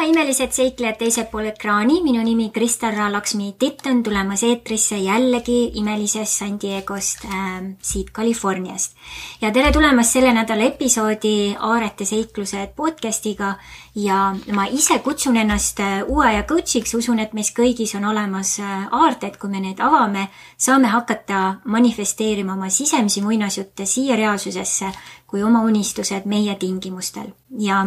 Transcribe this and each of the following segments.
imelised seiklejad teisel pool ekraani, minu nimi Kristel Raalaksmi Titt on tulemas eetrisse jällegi imelisest San Diegost siit Californiast. Ja tere tulemast selle nädala episoodi Aarete seiklused podcastiga ja ma ise kutsun ennast uue ja coachiks, usun, et meis kõigis on olemas aarted, kui me need avame, saame hakata manifesteerima oma sisemisi muinasjutte siia reaalsusesse kui oma unistused meie tingimustel. Ja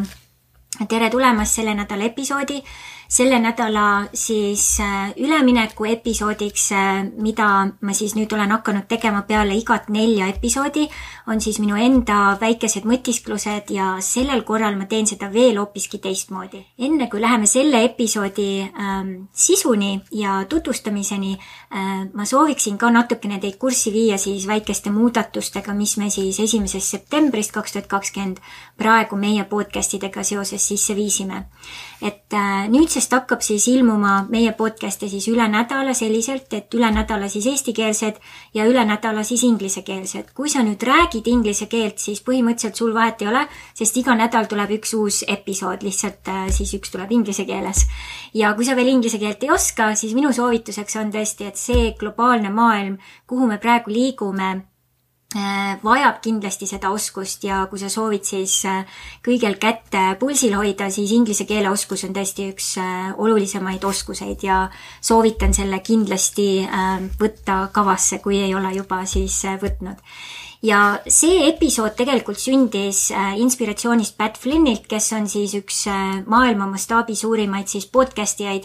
tere tulemast selle nädala episoodi. Selle nädala siis ülemineku episoodiks, mida ma siis nüüd olen hakanud tegema peale igat 4 episoodi, on siis minu enda väikesed mõtisklused ja sellel korral ma teen seda veel hoopiski teistmoodi. Enne kui läheme selle episoodi sisuni ja tutvustamiseni, ma sooviksin ka natukene teid kurssi viia siis väikeste muudatustega, mis me siis 1. septembrist 2020 praegu meie podcastidega seoses sisse viisime. Et nüüdsest hakkab siis ilmuma meie podcaste siis üle nädala selliselt, et üle nädala siis eestikeelsed ja üle nädala siis inglisekeelsed. Kui sa nüüd räägid inglise keelt, siis põhimõtteliselt sul vahet ei ole, sest iga nädal tuleb üks uus episood, lihtsalt siis üks tuleb inglise keeles. Ja kui sa veel inglise keelt ei oska, siis minu soovituseks on tõesti, et see globaalne maailm, kuhu me praegu liigume, vajab kindlasti seda oskust ja kui sa soovid siis kõigel kätt pulsil hoida, siis inglise keele oskus on tõesti üks olulisemaid oskuseid ja soovitan selle kindlasti võtta kavasse, kui ei ole juba siis võtnud. Ja see episood tegelikult sündis inspiratsioonist Pat Flynnilt, kes on siis üks maailma mastaabi suurimaid siis podcastijaid.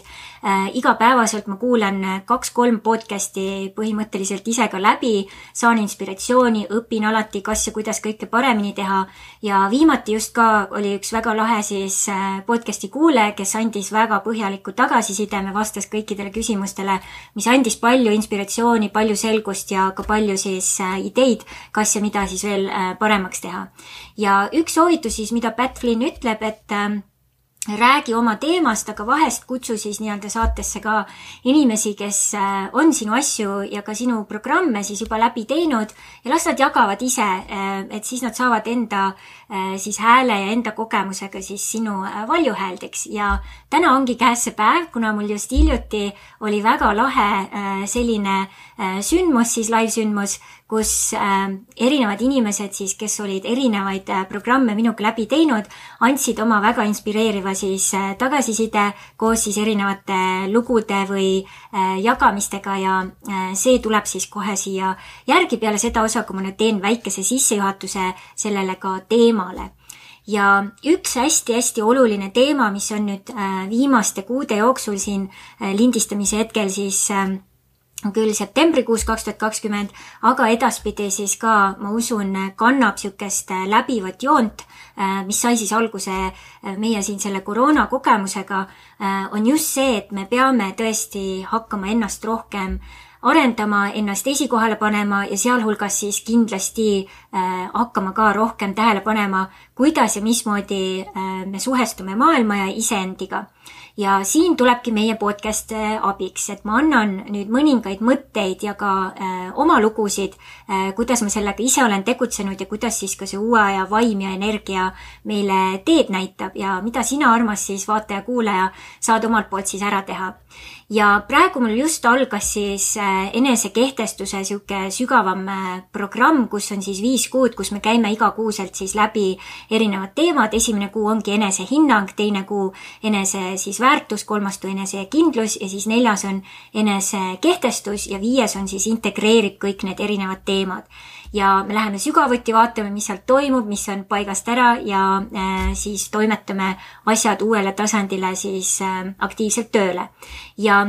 Igapäevaselt ma kuulan 2-3 podcasti põhimõtteliselt ise ka läbi, saan inspiratsiooni, õpin alati kas ja kuidas kõike paremini teha ja viimati just ka oli üks väga lahe siis podcasti kuulaja, kes andis väga põhjaliku tagasiside, me vastas kõikidele küsimustele, mis andis palju inspiratsiooni, palju selgust ja ka palju siis ideid, kas ja mida siis veel paremaks teha. Ja üks soovitus siis, mida Pat Flynn ütleb, et räägi oma teemast, aga vahest kutsu siis nii-öelda saatesse ka inimesi, kes on sinu asju ja ka sinu programme siis juba läbi teinud ja las nad jagavad ise, et siis nad saavad enda siis hääle ja enda kogemusega siis sinu valjuhääldeks. Ja täna ongi käes see päev, kuna mul just hiljuti oli väga lahe selline sündmus, siis live-sündmus, kus erinevad inimesed siis, kes olid erinevaid programme minuga läbi teinud, andsid oma väga inspireeriva siis tagasiside koos siis erinevate lugude või jagamistega ja see tuleb siis kohe siia järgi peale seda osa, kui ma nüüd teen väikese sissejuhatuse sellele ka teemale. Ja üks hästi-hästi oluline teema, mis on nüüd viimaste kuude jooksul siin lindistamise hetkel siis küll septembrikuus 2020, aga edaspidi siis ka, ma usun, kannab sükest läbivat joont, mis sai siis alguse meie siin selle koroona kogemusega, on just see, et me peame tõesti hakkama ennast rohkem arendama, ennast esikohale panema ja sealhulgas siis kindlasti hakkama ka rohkem tähele panema, kuidas ja mismoodi me suhestume maailma ja iseendiga. Ja siin tulebki meie podcast abiks, et ma annan nüüd mõningaid mõtteid ja ka oma lugusid, kuidas ma sellega ise olen tegutsenud ja kuidas siis ka see uue aja vaim ja energia meile teed näitab ja mida sina, armas siis vaataja-kuulaja, saad omalt poolt siis ära teha. Ja praegu mul just algas siis enesekehtestuse siuke sügavam programm, kus on siis 5 kuud, kus me käime igakuuselt siis läbi erinevad teemad. Esimene kuu ongi enesehinnang, teine kuu enese siis väärtus, 3. enesekindlus ja siis 4. on enesekehtestus ja 5. on siis integreerib kõik need erinevad teemad. Ja me läheme sügavuti, vaatame, mis sealt toimub, mis on paigast ära ja siis toimetame asjad uuele tasandile siis aktiivselt tööle. Ja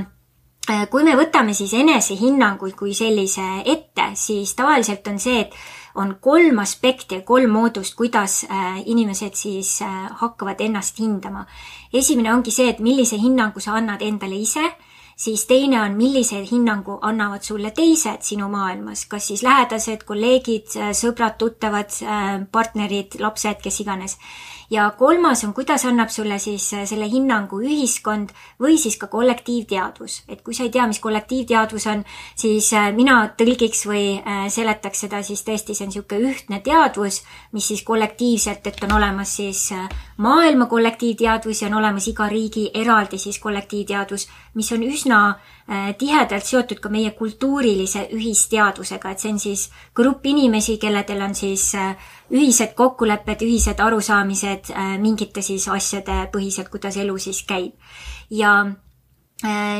kui me võtame siis enesehinnanguid kui sellise ette, siis tavaliselt on see, et on 3 aspekti ja 3 moodust, kuidas inimesed siis hakkavad ennast hindama. Esimene ongi see, et millise hinnangu sa annad endale ise. siis teine on, millise hinnangu annavad sulle teised sinu maailmas, kas siis lähedased, kolleegid, sõbrad, tuttavad, partnerid, lapsed, kes iganes. Ja kolmas on, kuidas annab sulle siis selle hinnangu ühiskond või siis ka kollektiivteadvus. Et kui sa ei tea, mis kollektiivteadvus on, siis mina tõlgiks või seletaks seda, siis tõesti see on niisugune ühtne teadvus, mis siis kollektiivselt, et on olemas siis maailma kollektiivteadvus ja on olemas iga riigi eraldi siis kollektiivteadvus, mis on üsna tihedalt seotud ka meie kultuurilise ühisteadvusega, et see on siis grupp inimesi, kelledel on siis ühised kokkulepped, ühised arusaamised mingite siis asjade põhiselt, kuidas elu siis käib. Ja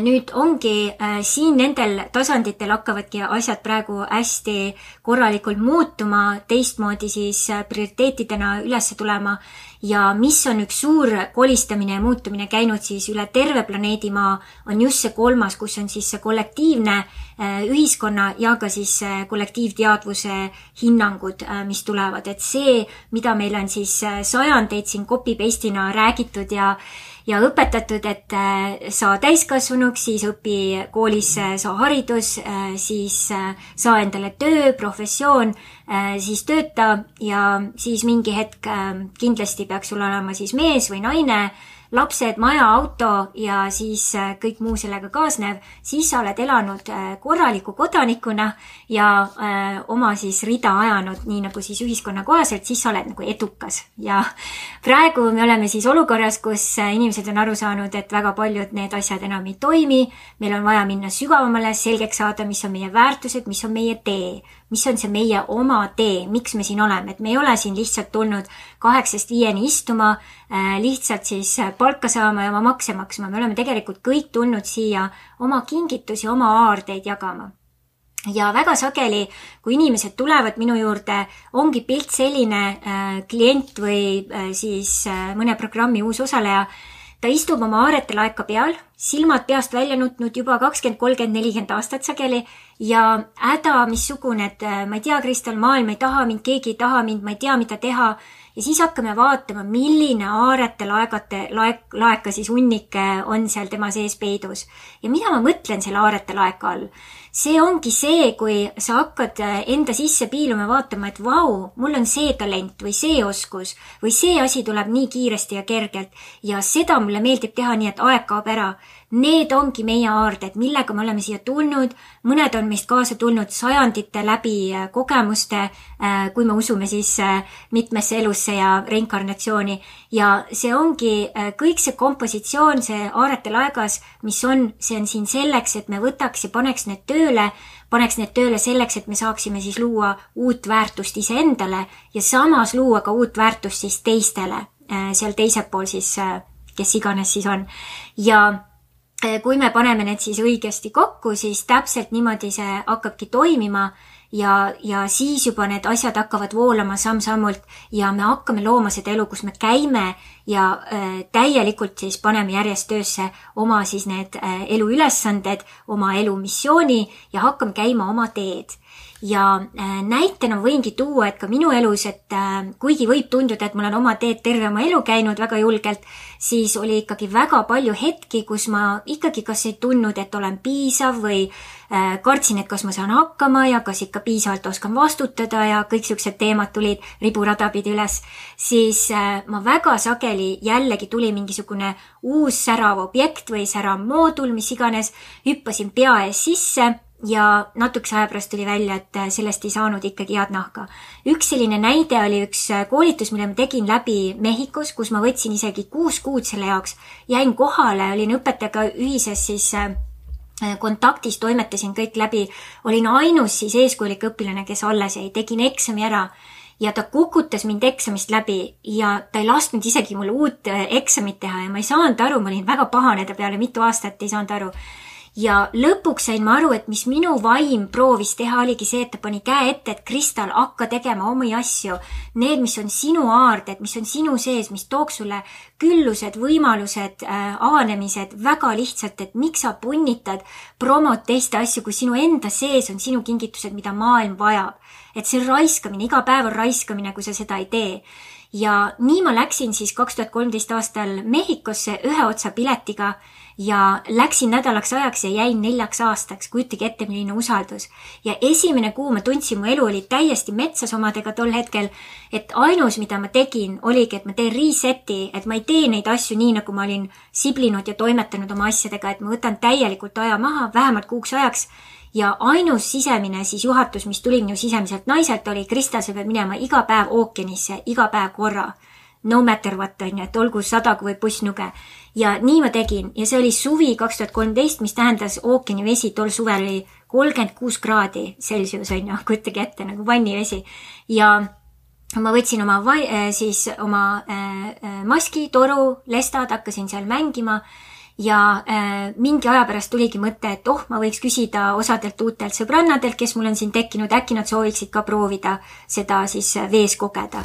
nüüd ongi siin nendel tasanditel hakkavadki asjad praegu hästi korralikult muutuma, teistmoodi siis prioriteetidena üles tulema ja mis on üks suur kolistamine ja muutumine käinud siis üle terve planeedi Maa, on just see kolmas, kus on siis see kollektiivne ühiskonna ja ka siis kollektiivteadvuse hinnangud, mis tulevad. Et see, mida meil on siis sajandeid siin copy-paste'ina räägitud ja õpetatud, et saa täiskasvanuks, siis õpi koolis, saa haridus, siis saa endale töö, professioon, siis tööta ja siis mingi hetk kindlasti peaks sul olema siis mees või naine, lapsed, maja, auto ja siis kõik muu sellega kaasnev, siis sa oled elanud korraliku kodanikuna ja oma siis rida ajanud nii nagu siis ühiskonna kohaselt, siis sa oled nagu edukas. Ja praegu me oleme siis olukorras, kus inimesed on aru saanud, et väga paljud need asjad enam ei toimi, meil on vaja minna sügavamale, selgeks saada, mis on meie väärtused, mis on meie tee, mis on see meie oma tee, miks me siin oleme, et me ei ole siin lihtsalt tulnud 8-5 istuma, lihtsalt siis palka saama ja oma makse maksma. Me oleme tegelikult kõik tulnud siia oma kingitusi, oma aardeid jagama. Ja väga sageli, kui inimesed tulevad minu juurde, ongi pilt selline klient või siis mõne programmi uus osaleja, ta istub oma aarete laeka peal, silmad peast välja nutnud juba 20, 30, 40 aastat sageli ja häda missugune, et ma ei tea, Kristal, maailm ei taha mind, keegi ei taha mind, ma ei tea, mida teha. Ja siis hakkame vaatama, milline aarete laeka siis hunnike on seal tema sees peidus. Ja mida ma mõtlen selle aarete laeka all? See ongi see, kui sa hakkad enda sisse piiluma vaatama, et vau, mul on see talent või see oskus või see asi tuleb nii kiiresti ja kergelt ja seda mulle meeldib teha nii, et aeg kaob ära. Need ongi meie aarded, millega me oleme siia tulnud. Mõned on meist kaasa tulnud sajandite läbi kogemuste, kui me usume siis mitmesse elusse ja reinkarnatsiooni. Ja see ongi kõik see kompositsioon, see aarete laegas, mis on, see on siin selleks, et me võtaks ja paneks need tööle selleks, et me saaksime siis luua uut väärtust iseendale ja samas luua ka uut väärtust siis teistele, seal teisel pool siis, kes iganes siis on. Ja kui me paneme need siis õigesti kokku, siis täpselt niimoodi see hakkabki toimima ja siis juba need asjad hakkavad voolama samm-sammult ja me hakkame looma seda elu, kus me käime ja täielikult siis paneme järjest töösse oma siis need eluülesanded, oma elumissiooni ja hakkame käima oma teed. Ja näitena võingi tuua, et ka minu elus, et kuigi võib tunduda, et mul on oma teed terve oma elu käinud väga julgelt, siis oli ikkagi väga palju hetki, kus ma ikkagi kas ei tundnud, et olen piisav või kartsin, et kas ma saan hakkama ja kas ikka piisavalt oskan vastutada ja kõik siuksed teemad tulid riburada pidi üles, siis ma väga sageli jällegi tuli mingisugune uus särav objekt või särav moodul, mis iganes, hüppasin pea ees sisse ja natukese aja pärast tuli välja, et sellest ei saanud ikkagi head nahka. Üks selline näide oli üks koolitus, mille ma tegin läbi Mehhikos, kus ma võtsin isegi 6 kuud selle jaoks, jäin kohale, olin õpetajaga ühises siis kontaktis, toimetasin kõik läbi, olin ainus siis eeskujulik õpilane, kes alles jäi, tegin eksami ära ja ta kukutas mind eksamist läbi ja ta ei lasknud isegi mulle uut eksamit teha ja ma ei saanud aru, ma olin väga pahane ta peale, mitu aastat ei saanud aru. Ja lõpuks sain ma aru, et mis minu vaim proovis teha, oligi see, et ta pani käe ette, et Kristal, hakka tegema omi asju. Need, mis on sinu aarded, mis on sinu sees, mis tooks sulle küllused, võimalused, avanemised väga lihtsalt, et miks sa punnitad promot teiste asju, kui sinu enda sees on sinu kingitused, mida maailm vajab. Et see raiskamine, iga päev on raiskamine, kui sa seda ei tee. Ja nii ma läksin siis 2013 aastal Mehhikosse ühe otsa piletiga ja läksin nädalaks ajaks ja jäin 4 aastaks, kujutage ette, milline usaldus. Ja esimene kuu ma tundsin, mu elu oli täiesti metsas omadega tol hetkel, et ainus, mida ma tegin, oligi, et ma teen reseti, et ma ei tee neid asju nii, nagu ma olin siblinud ja toimetanud oma asjadega, et ma võtan täielikult aja maha, vähemalt kuuks ajaks. Ja ainus sisemine siis juhatus, mis tuli minu sisemiselt naiselt, oli Kristel, sa pead minema iga päev ookeanisse, iga päev korra. No matter what, on ju, et olgu 100 või pussnuge. Ja nii ma tegin. Ja see oli suvi 2013, mis tähendas ookeanivesi. Tol suvel oli 36 kraadi Celsius, on ju, kujutage ette, nagu vannivesi. Ja ma võtsin oma maski, toru, lestad, hakkasin seal mängima. Ja mingi aja pärast tuligi mõte, et ma võiks küsida osadelt uutelt sõbrannadelt, kes mul on siin tekkinud, äkki nad sooviksid ka proovida seda siis vees kogeda.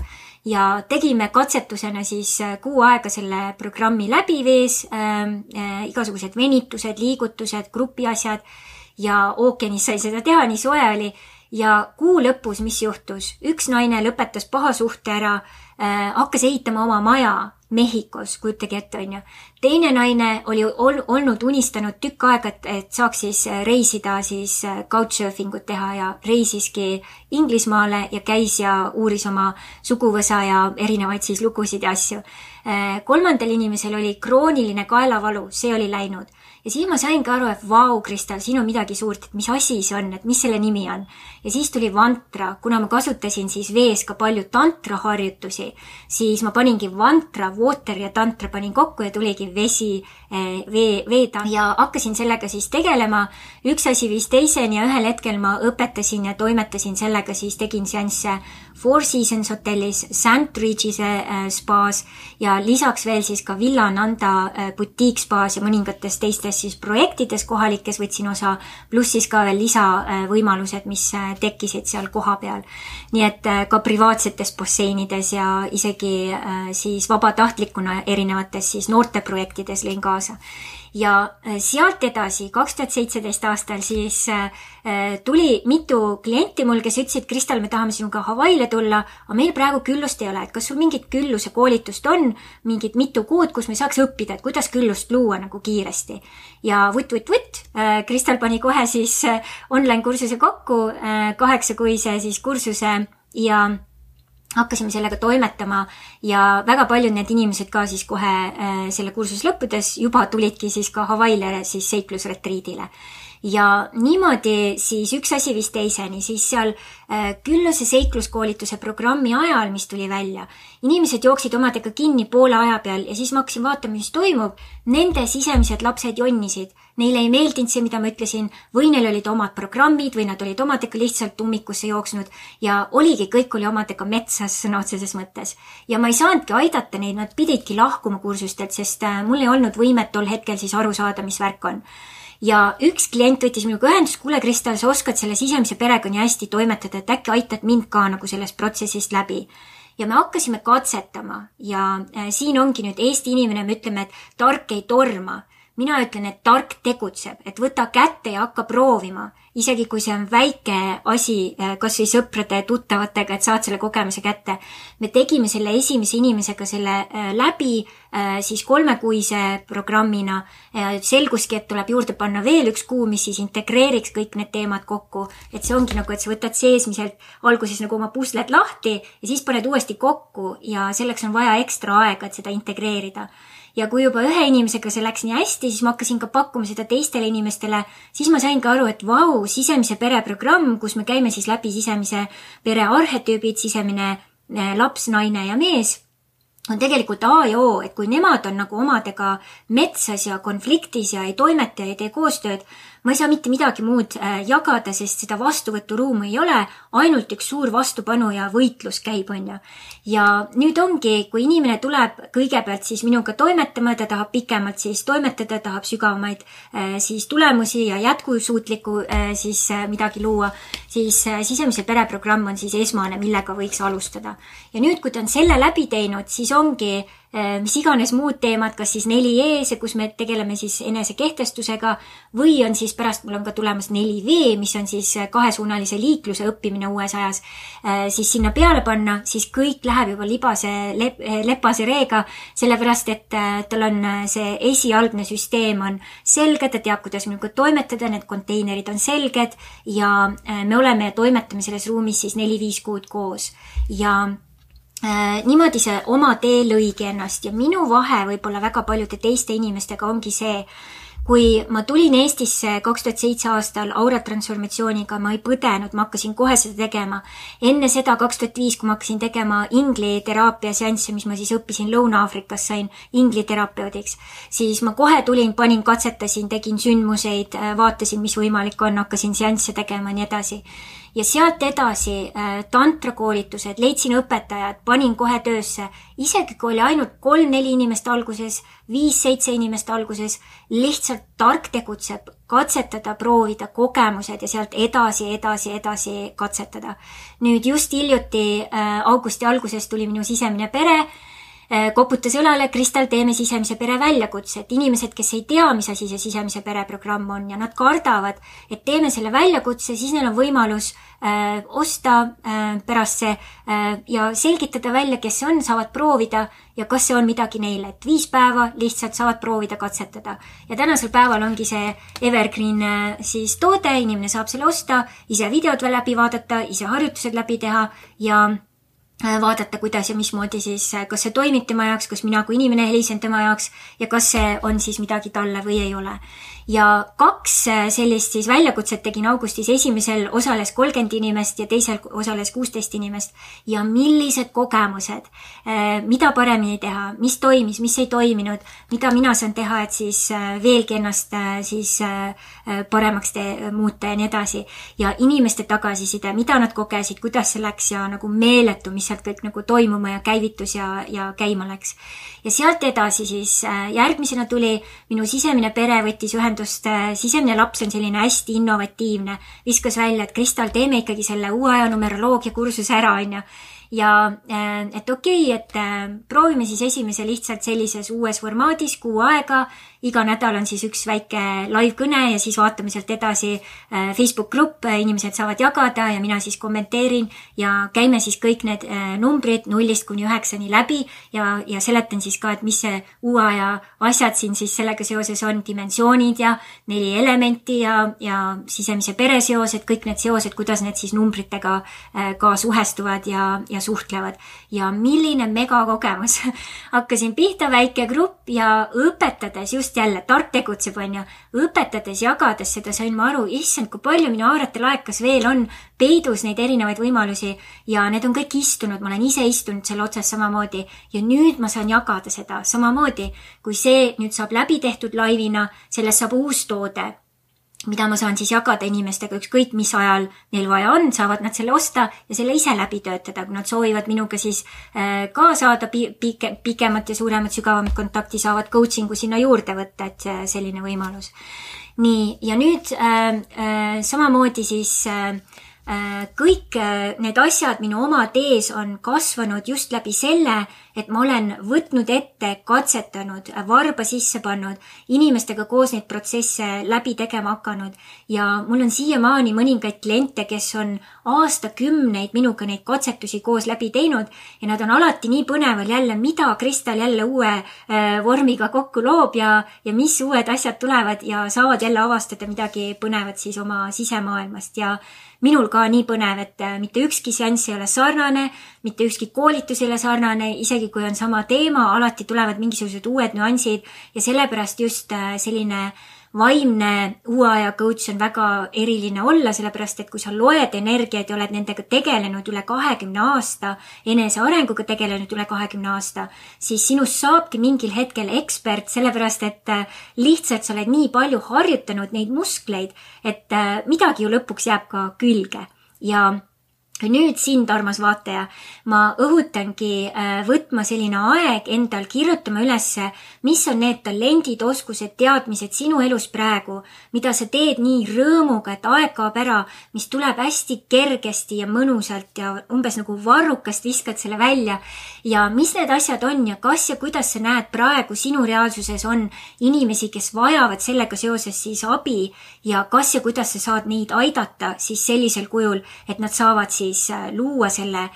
Ja tegime katsetusena siis kuu aega selle programmi läbi vees, igasugused venitused, liigutused, grupiasjad ja ookeanis sai seda teha, nii soe oli. Ja kuu lõpus, mis juhtus? Üks naine lõpetas paha suhte ära, hakkas ehitama oma maja Mehhikos, kujutage ette, on ju. Teine naine oli olnud unistanud tükk aega, et saaks siis reisida, siis couchsurfingut teha ja reisiski Inglismaale ja käis ja uuris oma suguvõsa ja erinevaid siis lugusid ja asju. Kolmandal inimesel oli krooniline kaelavalu, see oli läinud. Ja siis ma sain ka aru, et vau, Kristel, siin on midagi suurt, et mis asi see on, et mis selle nimi on. Ja siis tuli vantra, kuna ma kasutasin siis vees ka palju tantra harjutusi, siis ma paningi vantra, water ja tantra panin kokku ja tuligi vesi, veetantra. Ja hakkasin sellega siis tegelema. Üks asi viis teiseni ja ühel hetkel ma õpetasin ja toimetasin sellega, siis tegin seansse Four Seasons hotellis, Sandridge'ise spaas ja lisaks veel siis ka Villa Nanda boutique spaas ja mõningates teistes siis projektides kohalikes võtsin osa, pluss siis ka veel lisavõimalused, mis tekkisid seal koha peal. Nii et ka privaatsetes basseinides ja isegi siis vabatahtlikuna erinevates siis noorteprojektides lõin kaasa. Ja sealt edasi, 2017 aastal siis tuli mitu klienti mul, kes ütlesid, Kristel, me tahame sinuga Hawaiile tulla, aga meil praegu küllust ei ole, et kas sul mingit külluse koolitust on, mingit mitu kuud, kus me saaks õppida, et kuidas küllust luua nagu kiiresti. Ja Kristel pani kohe siis online kursuse kokku, 8-kuise siis kursuse ja hakkasime sellega toimetama ja väga paljud need inimesed ka siis kohe selle kursus lõppudes juba tulidki siis ka Hawaiile siis seiklusretriidile. Ja niimoodi siis üks asi viis teiseni, siis seal külluse seikluskoolituse programmi ajal, mis tuli välja, inimesed jooksid omadega kinni poole aja peal ja siis ma hakkasin vaatama, mis toimub. Nende sisemised lapsed jonnisid. Neile ei meeldinud see, mida ma ütlesin, või neil olid omad programmid või nad olid omadega lihtsalt ummikusse jooksnud ja oligi, kõik oli omadega metsas sõna otseses mõttes. Ja ma ei saanudki aidata neid, nad pididki lahkuma kursustelt, sest mul ei olnud võimet tol hetkel siis aru saada, mis värk on. Ja üks klient võttis minuga ühendust, kuule Kristel, sa oskad selle sisemise perega nii hästi toimetada, et äkki aitad mind ka nagu sellest protsessist läbi. Ja me hakkasime katsetama ja siin ongi nüüd Eesti inimene, me ütleme, et tark ei torma. Mina ütlen, et tark tegutseb, et võta kätte ja hakka proovima. Isegi kui see on väike asi, kas või sõprade tuttavatega, et saad selle kogemuse kätte. Me tegime selle esimese inimesega selle läbi siis 3-kuise programmina. Selguski, et tuleb juurde panna veel 1 kuu, mis siis integreeriks kõik need teemad kokku. Et see ongi nagu, et sa võtad seesmiselt alguses nagu oma pusled lahti ja siis paned uuesti kokku ja selleks on vaja ekstra aega, et seda integreerida. Ja kui juba ühe inimesega see läks nii hästi, siis ma hakkasin ka pakkuma seda teistele inimestele, siis ma sain ka aru, et vau, sisemise pere programm, kus me käime siis läbi sisemise pere arhetüübid, sisemine laps, naine ja mees, on tegelikult A ja O, et kui nemad on nagu omadega metsas ja konfliktis ja ei toimeta ja ei tee koostööd, ma ei saa mitte midagi muud jagada, sest seda vastuvõturuumu ei ole, ainult üks suur vastupanu ja võitlus käib, on ju. Ja nüüd ongi, kui inimene tuleb kõigepealt siis minuga toimetama, ta tahab pikemalt siis toimetada, tahab sügavamaid siis tulemusi ja jätkusuutlikku siis midagi luua, siis sisemise pereprogramm on siis esmane, millega võiks alustada. Ja nüüd, kui ta on selle läbi teinud, siis ongi mis iganes muud teemad, kas siis 4E, see, kus me tegeleme siis enesekehtestusega, või on siis pärast, mul on ka tulemas 4V, mis on siis kahesuunalise liikluse õppimine uues ajas, siis sinna peale panna, siis kõik läheb juba lepase reega, sellepärast, et tal on see esialgne süsteem on selge, ta teab, kuidas minuga toimetada, need konteinerid on selged ja me oleme ja toimetame selles ruumis siis 4-5 kuud koos ja niimoodi see oma tee lõigi ennast ja minu vahe võib-olla väga paljude teiste inimestega ongi see, kui ma tulin Eestisse 2007 aastal auratransformatsiooniga, ma ei põdenud, ma hakkasin kohe seda tegema. Enne seda 2005, kui ma hakkasin tegema ingliteraapia seansse, mis ma siis õppisin Lõuna-Aafrikas, sain ingliterapeudiks, siis ma kohe tulin, panin, katsetasin, tegin sündmuseid, vaatasin, mis võimalik on, hakkasin seansse tegema ja nii edasi. Ja sealt edasi tantrakoolitused, leidsin õpetajad, panin kohe töösse, isegi kui oli ainult 3-4 inimest alguses, 5-7 inimest alguses, lihtsalt tark tegutseb, katsetada, proovida kogemused ja sealt edasi katsetada. Nüüd just hiljuti augusti alguses tuli minu sisemine pere, koputas õlale, Kristal, teeme sisemise pere väljakutse, et inimesed, kes ei tea, mis asi see sisemise pere programm on ja nad kardavad, et teeme selle väljakutse, siis neil on võimalus osta pärast see ja selgitada välja, kes see on, saavad proovida ja kas see on midagi neile, et 5 päeva lihtsalt saavad proovida katsetada. Ja tänasel päeval ongi see evergreen siis toode, inimene saab selle osta, ise videod läbi vaadata, ise harjutused läbi teha ja vaadata, kuidas ja mismoodi siis, kas see toimib tema jaoks, kas mina kui inimene helisen tema jaoks ja kas see on siis midagi talle või ei ole. Ja 2 sellist siis väljakutset tegin augustis, esimesel osales 30 inimest ja teisel osales 16 inimest ja millised kogemused, mida paremini teha, mis toimis, mis ei toiminud, mida mina saan teha, et siis veelgi ennast siis paremaks muuta ja nii edasi. Ja inimeste tagasiside, mida nad kogesid, kuidas see läks ja nagu meeletu, mis sealt kõik nagu toimuma ja käivitus ja käima läks. Ja sealt edasi siis järgmisena tuli minu sisemine pere, võttis ühendust, sisemine laps on selline hästi innovatiivne, viskas välja, et Kristal, teeme ikkagi selle uue aja numeroloogia kursuse ära, on ju. Ja et okei, et proovime siis esimese lihtsalt sellises uues formaadis kuu aega, iga nädal on siis üks väike live kõne ja siis vaatame sealt edasi Facebook grupp, inimesed saavad jagada ja mina siis kommenteerin ja käime siis kõik need numbrid 0-9 läbi ja seletan siis ka, et mis see uue aja asjad siin siis sellega seoses on, dimensioonid ja 4 elementi ja sisemise pere seosed, kõik need seosed, kuidas need siis numbritega ka suhestuvad ja suhtlevad. Ja milline megakogemus. Hakkasin pihta väike grupp ja õpetades just jälle, tark tegutseb, on ju, õpetades, jagades seda sain ma aru, issand, kui palju minu aarete laekas veel on peidus neid erinevaid võimalusi ja need on kõik istunud, ma olen ise istunud selle otsas samamoodi ja nüüd ma saan jagada seda samamoodi, kui see nüüd saab läbi tehtud laivina, sellest saab uus toode, mida ma saan siis jagada inimestega, ükskõik mis ajal neil vaja on, saavad nad selle osta ja selle ise läbi töötada, kui nad soovivad minuga siis ka saada pikemat ja suuremat, sügavamat kontakti, saavad coachingu sinna juurde võtta, et selline võimalus. Nii, ja nüüd samamoodi siis kõik need asjad minu oma tees on kasvanud just läbi selle, et ma olen võtnud ette, katsetanud, varba sisse pannud, inimestega koos neid protsesse läbi tegema hakanud ja mul on siiamaani mõningaid kliente, kes on aastakümneid minuga neid katsetusi koos läbi teinud ja nad on alati nii põneval jälle, mida Kristal jälle uue vormiga kokku loob ja mis uued asjad tulevad ja saavad jälle avastada midagi põnevat siis oma sisemaailmast ja minul ka nii põnev, et mitte ükski seanss ei ole sarnane, mitte ükski koolitus ei ole sarnane, isegi kui on sama teema, alati tulevad mingisugused uued nüansid ja sellepärast just selline vaimne uue aja coach on väga eriline olla, sellepärast et kui sa loed energiaid ja oled nendega tegelenud üle 20 aasta, enesearenguga tegelenud üle 20 aasta, siis sinust saabki mingil hetkel ekspert, sellepärast et lihtsalt sa oled nii palju harjutanud neid muskleid, et midagi ju lõpuks jääb ka külge ja Nüüd sind, armas vaataja, ma õhutangi võtma selline aeg endal, kirjutama ülesse, mis on need talendid, oskused, teadmised sinu elus praegu, mida sa teed nii rõõmuga, et aeg kaob ära, mis tuleb hästi kergesti ja mõnusalt ja umbes nagu varrukast viskad selle välja ja mis need asjad on ja kas ja kuidas sa näed praegu sinu reaalsuses on inimesi, kes vajavad sellega seoses siis abi ja kas ja kuidas sa saad neid aidata siis sellisel kujul, et nad saavad siis luua selle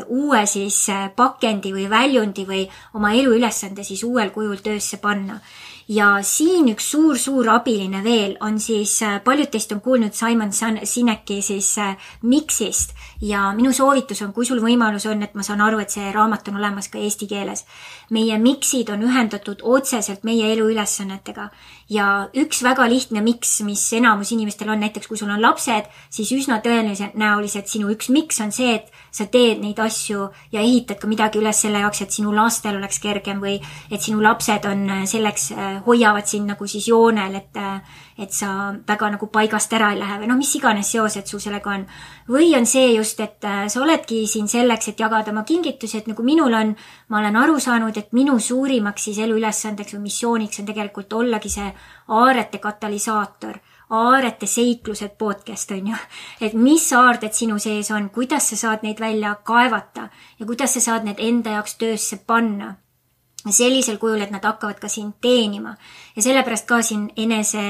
uue siis pakendi või väljundi või oma eluülesande siis uuel kujul töösse panna. Ja siin üks suur abiline veel on siis, paljud teist on kuulnud Simon Sineki siis miksist ja minu soovitus on, kui sul võimalus on, et ma saan aru, et see raamat on olemas ka eesti keeles. Meie miksid on ühendatud otseselt meie eluülesannetega ja üks väga lihtne miks, mis enamus inimestel on, näiteks kui sul on lapsed, siis üsna tõenäoliselt sinu üks miks on see, et sa teed neid asju ja ehitad ka midagi üles selle jaoks, et sinu lastel oleks kergem või et sinu lapsed on selleks hoiavad sind nagu siis joonel, et sa väga nagu paigast ära ei lähe või mis iganes seosed sul sellega on. Või on see just, et sa oledki siin selleks, et jagada oma kingitusi, et nagu minul on, ma olen aru saanud, et minu suurimaks siis eluülesandeks või missiooniks on tegelikult ollagi see aarete katalüsaator, aarete seiklused podcast on ju, et mis aarded sinu sees on, kuidas sa saad neid välja kaevata ja kuidas sa saad need enda jaoks töösse panna. Sellisel kujul, et nad hakkavad ka sind teenima. Ja sellepärast ka siin enese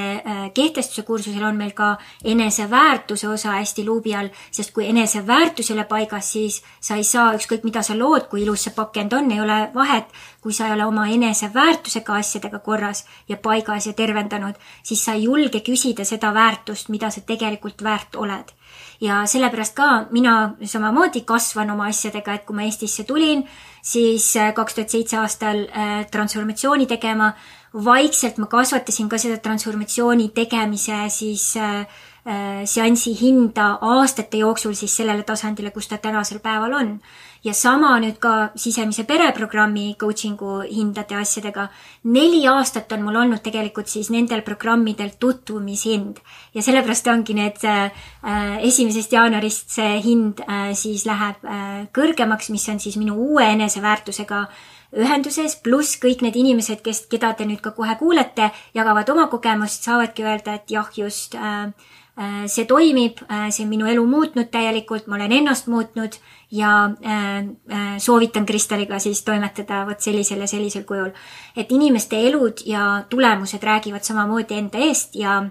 kehtestuse kursusel on meil ka enese väärtuse osa hästi luubi all, sest kui enese väärtus ei ole paigas, siis sa ei saa ükskõik mida sa lood, kui ilus see pakend on, ei ole vahet, kui sa ei ole oma enese väärtusega asjadega korras ja paigas ja tervendanud, siis sa ei julge küsida seda väärtust, mida sa tegelikult väärt oled. Ja sellepärast ka mina samamoodi kasvan oma asjadega, et kui ma Eestisse tulin, siis 2007 aastal transformatsiooni tegema, vaikselt ma kasvatasin ka seda transformatsiooni tegemise siis seansi hinda aastate jooksul siis sellele tasandile, kus ta tänasel päeval on. Ja sama nüüd ka sisemise pereprogrammi coachingu hindade asjadega. 4 aastat on mul olnud tegelikult siis nendel programmidel tutvumishind. Ja sellepärast ongi need 1. jaanuarist see hind siis läheb kõrgemaks, mis on siis minu uue eneseväärtusega ühenduses, pluss kõik need inimesed, keda te nüüd ka kohe kuulete, jagavad oma kogemust, saavadki öelda, et jah, just see toimib, see on minu elu muutnud täielikult, ma olen ennast muutnud ja soovitan Kristaliga siis toimetada võt sellisel ja sellisel kujul. Et inimeste elud ja tulemused räägivad samamoodi enda eest ja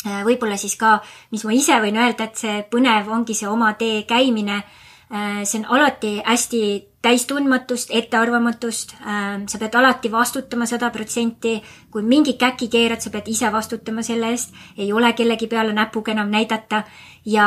võib-olla siis ka, mis ma ise võin öelda, et see põnev ongi see oma tee käimine, see on alati hästi täistundmatust, ettearvamatust, sa pead alati vastutama 100%, kui mingi käki keerad, sa pead ise vastutama selle eest, ei ole kellegi peale näpuga enam näidata ja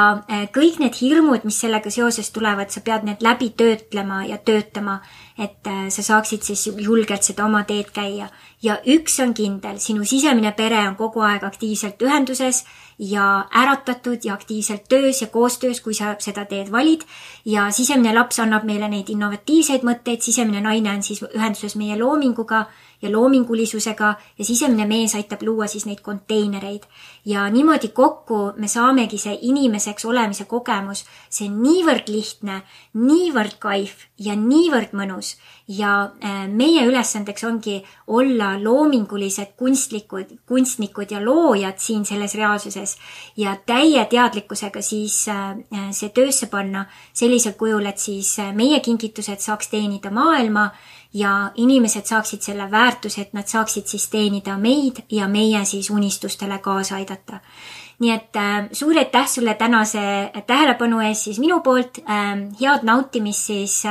kõik need hirmud, mis sellega seoses tulevad, sa pead need läbi töötlema ja töötama, et sa saaksid siis julgelt seda oma teed käia. Ja üks on kindel, sinu sisemine pere on kogu aeg aktiivselt ühenduses ja äratatud ja aktiivselt töös ja koostöös, kui sa seda teed valid ja sisemine laps annab meile neid innovatiivseid mõtteid, sisemine naine on siis ühenduses meie loominguga ja loomingulisusega ja sisemine mees aitab luua siis neid konteinereid. Ja niimoodi kokku me saamegi see inimeseks olemise kogemus, see on niivõrd lihtne, niivõrd kaif ja niivõrd mõnus ja meie ülesandeks ongi olla loomingulised kunstnikud ja loojad siin selles reaalsuses ja täie teadlikkusega siis see töösse panna sellisel kujul, et siis meie kingitused saaks teenida maailma ja inimesed saaksid selle väärtuse, et nad saaksid siis teenida meid ja meie siis unistustele kaasa aidata. Nii et suur aitäh sulle tänase tähelepanu ees siis minu poolt, head nautimist siis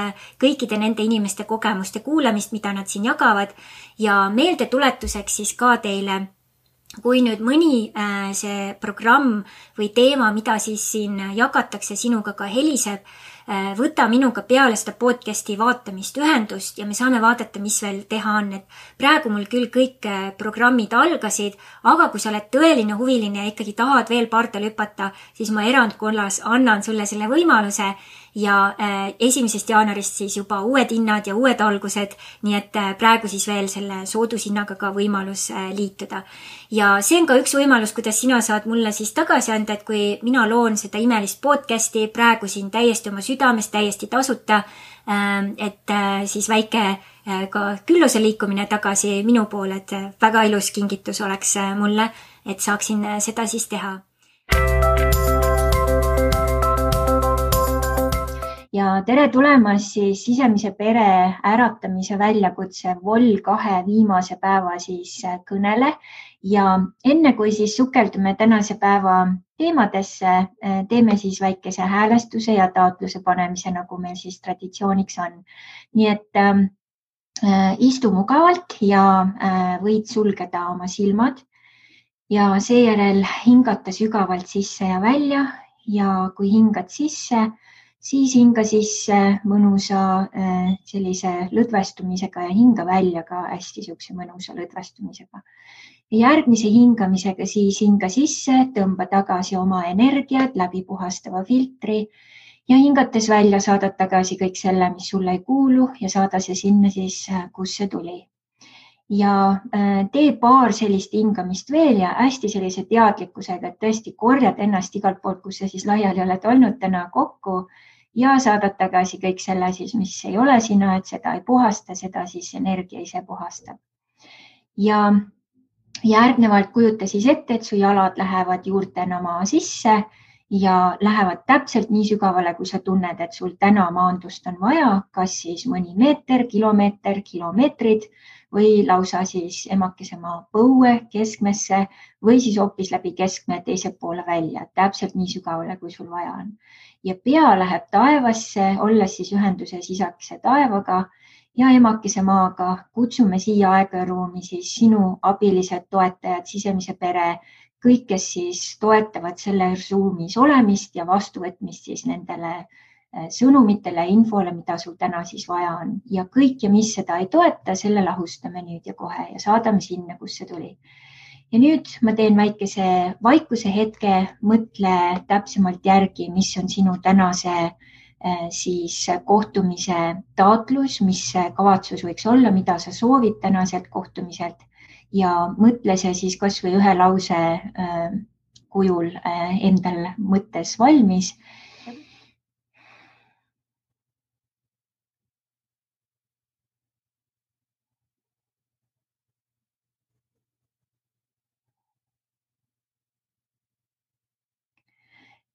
kõikide nende inimeste kogemuste kuulamist, mida nad siin jagavad ja meeldetuletuseks siis ka teile, kui nüüd mõni see programm või teema, mida siis siin jagatakse sinuga ka heliseb, võta minuga peale seda podcasti vaatamist ühendust ja me saame vaadata, mis veel teha on. Et praegu mul küll kõik programmid algasid, aga kui sa oled tõeline huviline ja ikkagi tahad veel pardal hüpata, siis ma erandkorras annan sulle selle võimaluse ja 1. jaanuarist siis juba uued hinnad ja uued algused, nii et praegu siis veel selle soodushinnaga ka võimalus liituda. Ja see on ka üks võimalus, kuidas sina saad mulle siis tagasi anda, et kui mina loon seda imelist podcasti praegu siin täiesti oma südamest, täiesti tasuta, et siis väike ka külluse liikumine tagasi minu poole, et väga ilus kingitus oleks mulle, et saaksin seda siis teha. Ja tere tulemast siis sisemise pere äratamise väljakutse Vol 2 viimase päeva siis kõnele ja enne kui siis sukeldume tänase päeva teemadesse, teeme siis väikese häälestuse ja taotluse panemise, nagu meil siis traditsiooniks on. Nii et istu mugavalt ja võid sulgeda oma silmad ja seejärel hingata sügavalt sisse ja välja ja kui hingad sisse, siis hinga sisse mõnusa sellise lõdvestumisega ja hinga välja ka hästi siukse mõnusa lõdvestumisega. Järgmise hingamisega siis hinga sisse, tõmba tagasi oma energiat läbi puhastava filtri ja hingates välja saadad tagasi kõik selle, mis sulle ei kuulu ja saada see sinna siis, kus see tuli. Ja tee paar sellist hingamist veel ja hästi sellise teadlikkusega, et tõesti korjad ennast igalt poolt, kus sa siis laiali oled olnud täna kokku ja saadad tagasi kõik selle siis, mis ei ole sina, et seda ei puhasta, seda siis energia ise puhastab. Ja järgnevalt kujuta siis ette, et su jalad lähevad juurtena maa sisse ja lähevad täpselt nii sügavale, kui sa tunned, et sul täna maandust on vaja, kas siis mõni meeter, kilomeetrid või lausa siis emakese maa põue keskmesse või siis hoopis läbi keskme teise poole välja, täpselt nii sügavale, kui sul vaja on. Ja pea läheb taevasse, olles siis ühenduses isakese taevaga ja emakese maaga. Kutsume siia aega ja ruumi siis sinu abilised toetajad, sisemise pere, kõik, kes siis toetavad selles ruumis olemist ja vastuvõtmist siis nendele sõnumitele ja infole, mida sul täna siis vaja on. Ja kõik ja mis seda ei toeta, selle lahustame nüüd ja kohe ja saadame sinna, kus see tuli. Ja nüüd ma teen väikese vaikuse hetke, mõtle täpsemalt järgi, mis on sinu tänase siis kohtumise taotlus, mis kavatsus võiks olla, mida sa soovid tänaselt kohtumiselt ja mõtle see siis kas või ühe lause kujul endal mõttes valmis.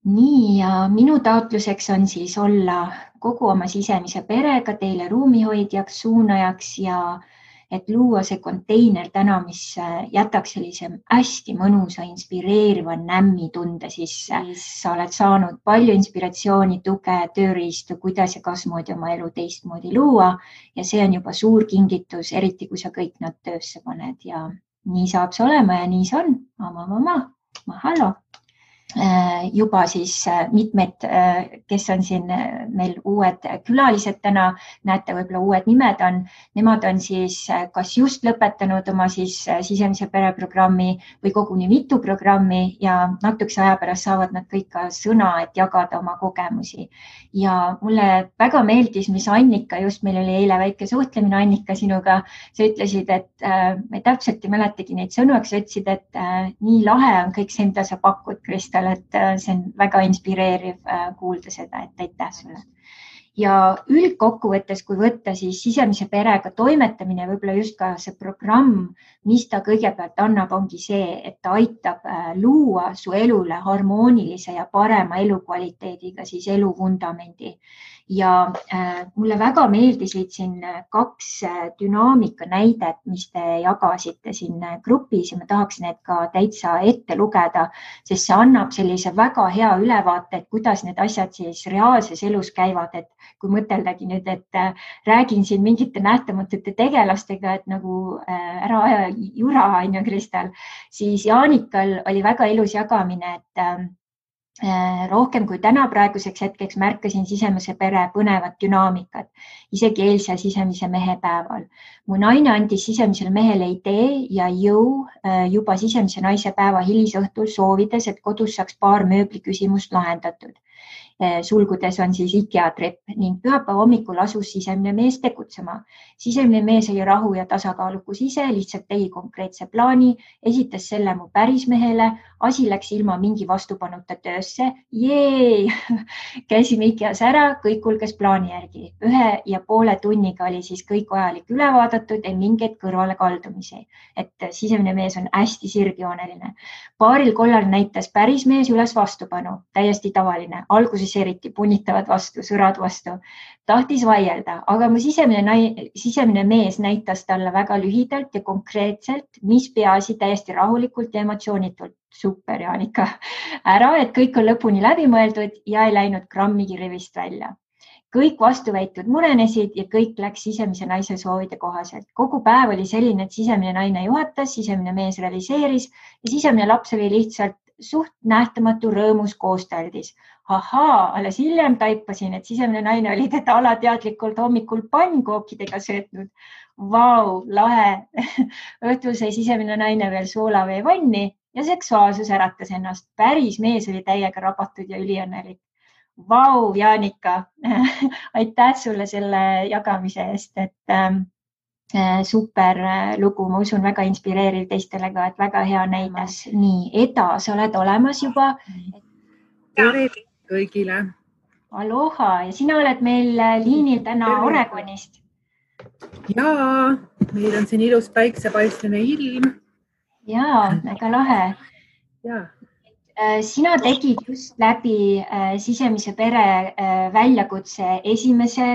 Nii ja minu taotluseks on siis olla kogu oma sisemise perega teile ruumihoidjaks, suunajaks ja et luua see konteiner täna, mis jätaks sellise hästi mõnusa, inspireeriva nämmi tunde sisse. Sa oled saanud palju inspiratsiooni, tuge, tööriistu, kuidas ja kasmoodi oma elu teistmoodi luua ja see on juba suur kingitus, eriti kui sa kõik nad töösse paned ja nii saab see olema ja nii see on. Mahalo. Juba siis mitmed, kes on siin meil uued külalised täna, näete võib-olla uued nimed on, nemad on siis kas just lõpetanud oma siis sisemise pereprogrammi või koguni mitu programmi ja natukese aja pärast saavad nad kõik ka sõna, et jagada oma kogemusi. Ja mulle väga meeldis, mis Annika, just meil oli eile väike suhtlemine Annika sinuga, sa ütlesid, et me täpselt ei mäletagi neid sõnu, sa ütlesid, et nii lahe on kõik see, mida sa pakud, Kristel, et see on väga inspireeriv kuulda seda, et aitäh sulle. Ja üldkokkuvõttes, kui võtta siis sisemise perega toimetamine, võib-olla just ka see programm, mis ta kõigepealt annab, ongi see, et ta aitab luua su elule harmoonilise ja parema elukvaliteediga siis eluvundamendi. Ja mulle väga meeldisid siin 2 dünaamika näidet, mis te jagasite siin grupis ja ma tahaks need ka täitsa ette lugeda, sest see annab sellise väga hea ülevaate, et kuidas need asjad siis reaalses elus käivad, et kui mõteldagi nüüd, et räägin siin mingite nähtamatute tegelastega, et nagu ära aja jura, on ju, Kristel, siis Jaanikal oli väga ilus jagamine, et rohkem kui täna praeguseks hetkeks märkasin sisemise pere põnevat dünaamikat, isegi eilse sisemise mehe päeval. Mu naine andis sisemisele mehele idee ja jõu juba sisemise naise päeva hilisõhtul soovides, et kodus saaks paar mööbli küsimust lahendatud. sulgudes on siis IKEA trepp ning pühapäeva hommikul asus sisemine mees tegutsema. Sisemine mees oli rahu ja tasakaalukus ise, lihtsalt tegi konkreetse plaani, esitas selle mu pärismehele, asi läks ilma mingi vastupanuta töösse. Jee! Käisime IKEAs ära, kõik kulges plaani järgi. 1,5 tunniga oli siis kõik vajalik üle vaadatud ja mingeid kõrvale kaldumisi. Et sisemine mees on hästi sirgjooneline. Paaril kollal näitas pärismees üles vastupanu, täiesti tavaline. Alguses eriti punitavad vastu, sõrad vastu. Tahtis vaielda, aga mu sisemine mees näitas talle väga lühidalt ja konkreetselt, mis peaasi täiesti rahulikult ja emotsioonitult. Super, Jaanika. Ära, et kõik on lõpuni läbi mõeldud ja ei läinud grammigi rivist välja. Kõik vastuväitud murenesid ja kõik läks sisemise naise soovide kohaselt. Kogu päev oli selline, et sisemine naine juhatas, sisemine mees realiseeris ja sisemine laps oli lihtsalt suht nähtamatu rõõmus koostaldis. Ahaa, alles hiljem taipasin, et sisemine naine oli teda alateadlikult hommikul pannkookidega söötnud. Vau, lahe. Õhtul sai sisemine naine veel soolavee vanni ja seksuaalsus äratas ennast. Päris mees oli täiega rabatud ja üliõnnelik. Vau, Jaanika. Aitäh sulle selle jagamise eest, et super lugu, ma usun, väga inspireeriv teistele ka, et väga hea näidas. Nii, Eda, sa oled olemas juba. Tere kõigile. Aloha ja sina oled meil liinil täna Oregonist. Jaa, meil on siin ilus päiksepaistline ilm. Jaa, väga lahe. Jaa. Sina tegid just läbi sisemise pere väljakutse esimese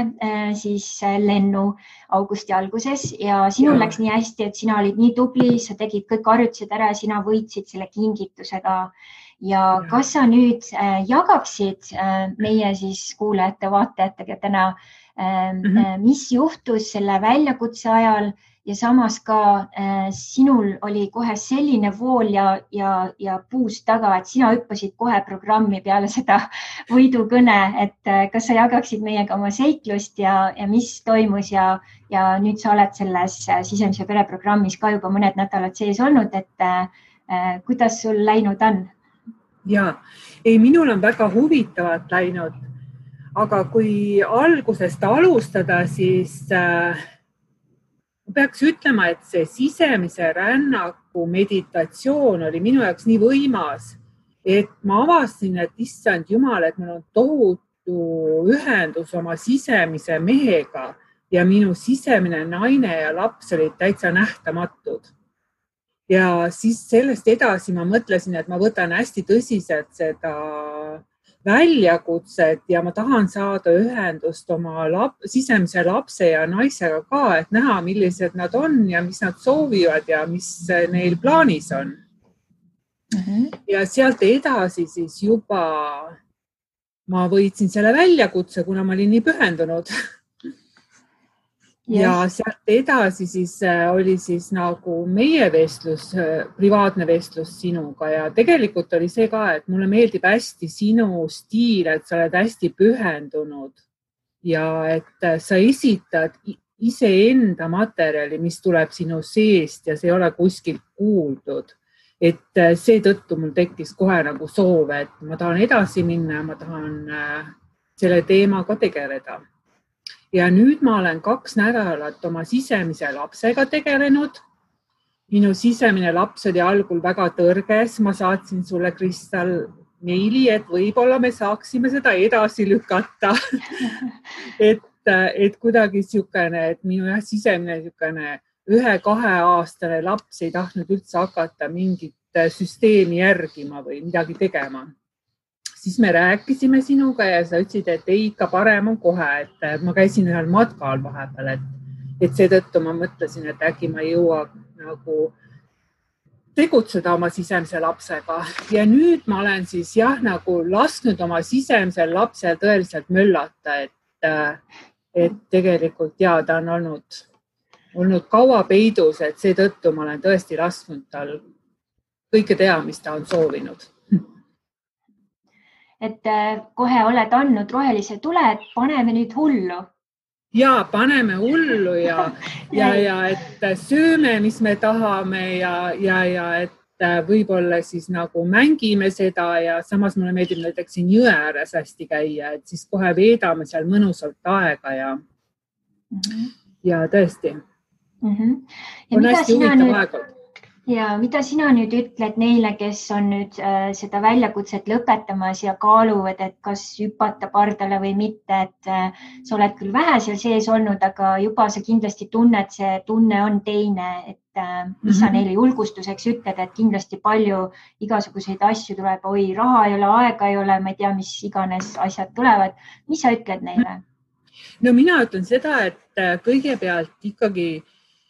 siis lennu augusti alguses ja sinul läks nii hästi, et sina olid nii tubli, sa tegid kõik harjutused ära ja sina võitsid selle kingitusega. Ja kas sa nüüd jagaksid meie siis kuulajate, vaatajatega täna, mis juhtus selle väljakutse ajal ja samas ka sinul oli kohe selline vool ja puus taga, et sina hüppasid kohe programmi peale seda võidukõne, et kas sa jagaksid meiega oma seiklust ja mis toimus ja nüüd sa oled selles sisemise pere programmis ka juba mõned nädalad sees olnud, et kuidas sul läinud on? Jaa, minul on väga huvitavalt läinud, aga kui algusest alustada, siis peaks ütlema, et see sisemise rännaku meditatsioon oli minu jaoks nii võimas, et ma avastasin, et issand jumal, et mul on tohutu ühendus oma sisemise mehega ja minu sisemine naine ja laps olid täitsa nähtamatud. Ja siis sellest edasi ma mõtlesin, et ma võtan hästi tõsiselt seda väljakutset ja ma tahan saada ühendust oma sisemise lapse ja naisega ka, et näha, millised nad on ja mis nad soovivad ja mis neil plaanis on. Ja sealt edasi siis juba ma võitsin selle väljakutse, kuna ma olin nii pühendunud. Ja sealt edasi siis oli siis nagu meie vestlus, privaatne vestlus sinuga ja tegelikult oli see ka, et mulle meeldib hästi sinu stiil, et sa oled hästi pühendunud ja et sa esitad iseenda materjali, mis tuleb sinu seest ja see ei ole kuskilt kuuldud. Et seetõttu mul tekkis kohe nagu soov, et ma tahan edasi minna ja ma tahan selle teemaga tegeleda. Ja nüüd ma olen 2 nädalat oma sisemise lapsega tegelenud. Minu sisemine laps oli algul väga tõrges. Ma saatsin sulle, Kristal, meili, et võib-olla me saaksime seda edasi lükata. et kuidagi siukene, et minu sisemine siukene 1-2 aastane laps ei tahtnud üldse hakata mingit süsteemi järgima või midagi tegema. Siis me rääkisime sinuga ja sa ütlesid, et ei, ikka parem on kohe, et ma käisin ühel matkal vahepeal, et seetõttu ma mõtlesin, et äkki ma ei jõua nagu tegutseda oma sisemise lapsega. Ja nüüd ma olen siis nagu lasknud oma sisemisel lapsel tõeliselt möllata, et tegelikult ta on olnud kaua peidus, et seetõttu ma olen tõesti lasknud tal kõike teha, mis ta on soovinud. Et kohe oled andnud rohelise tule, et paneme nüüd hullu. Ja, paneme hullu ja et sööme, mis me tahame ja et võib-olla siis nagu mängime seda ja samas mulle meeldib näiteks siin jõe ääres hästi käia, et siis kohe veedame seal mõnusalt aega ja tõesti. Ja on hästi huvitav aeg. Ja mida sina nüüd ütled neile, kes on nüüd seda väljakutset lõpetamas ja kaaluvad, et kas hüpata pardale või mitte, et sa oled küll vähe seal sees olnud, aga juba sa kindlasti tunned, see tunne on teine, et mis sa neile julgustuseks ütled, et kindlasti palju igasuguseid asju tuleb, oi, raha ei ole, aega ei ole, ma ei tea, mis iganes asjad tulevad. Mis sa ütled neile? No mina ütlen seda, et kõigepealt ikkagi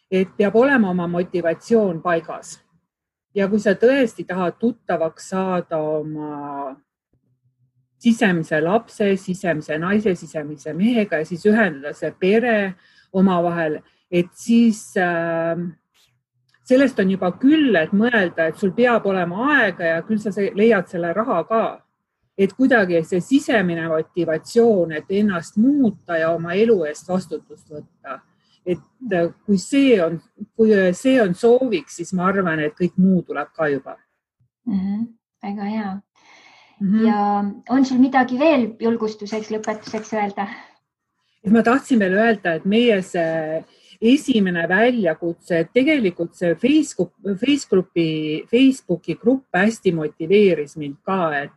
et peab olema oma motivatsioon paigas. Ja kui sa tõesti tahad tuttavaks saada oma sisemise lapse, sisemise naise, sisemise mehega ja siis ühendada see pere omavahel, et siis sellest on juba küll, et mõelda, et sul peab olema aega ja küll sa leiad selle raha ka. Et kuidagi see sisemine motivatsioon, et ennast muuta ja oma elu eest vastutust võtta. Et kui see on sooviks, siis ma arvan, et kõik muu tuleb ka juba. Väga hea. Ja on sul midagi veel julgustuseks, lõpetuseks öelda? Ma tahtsin veel öelda, et meie see esimene väljakutse, et tegelikult see Facebooki grupp hästi motiveeris mind ka, et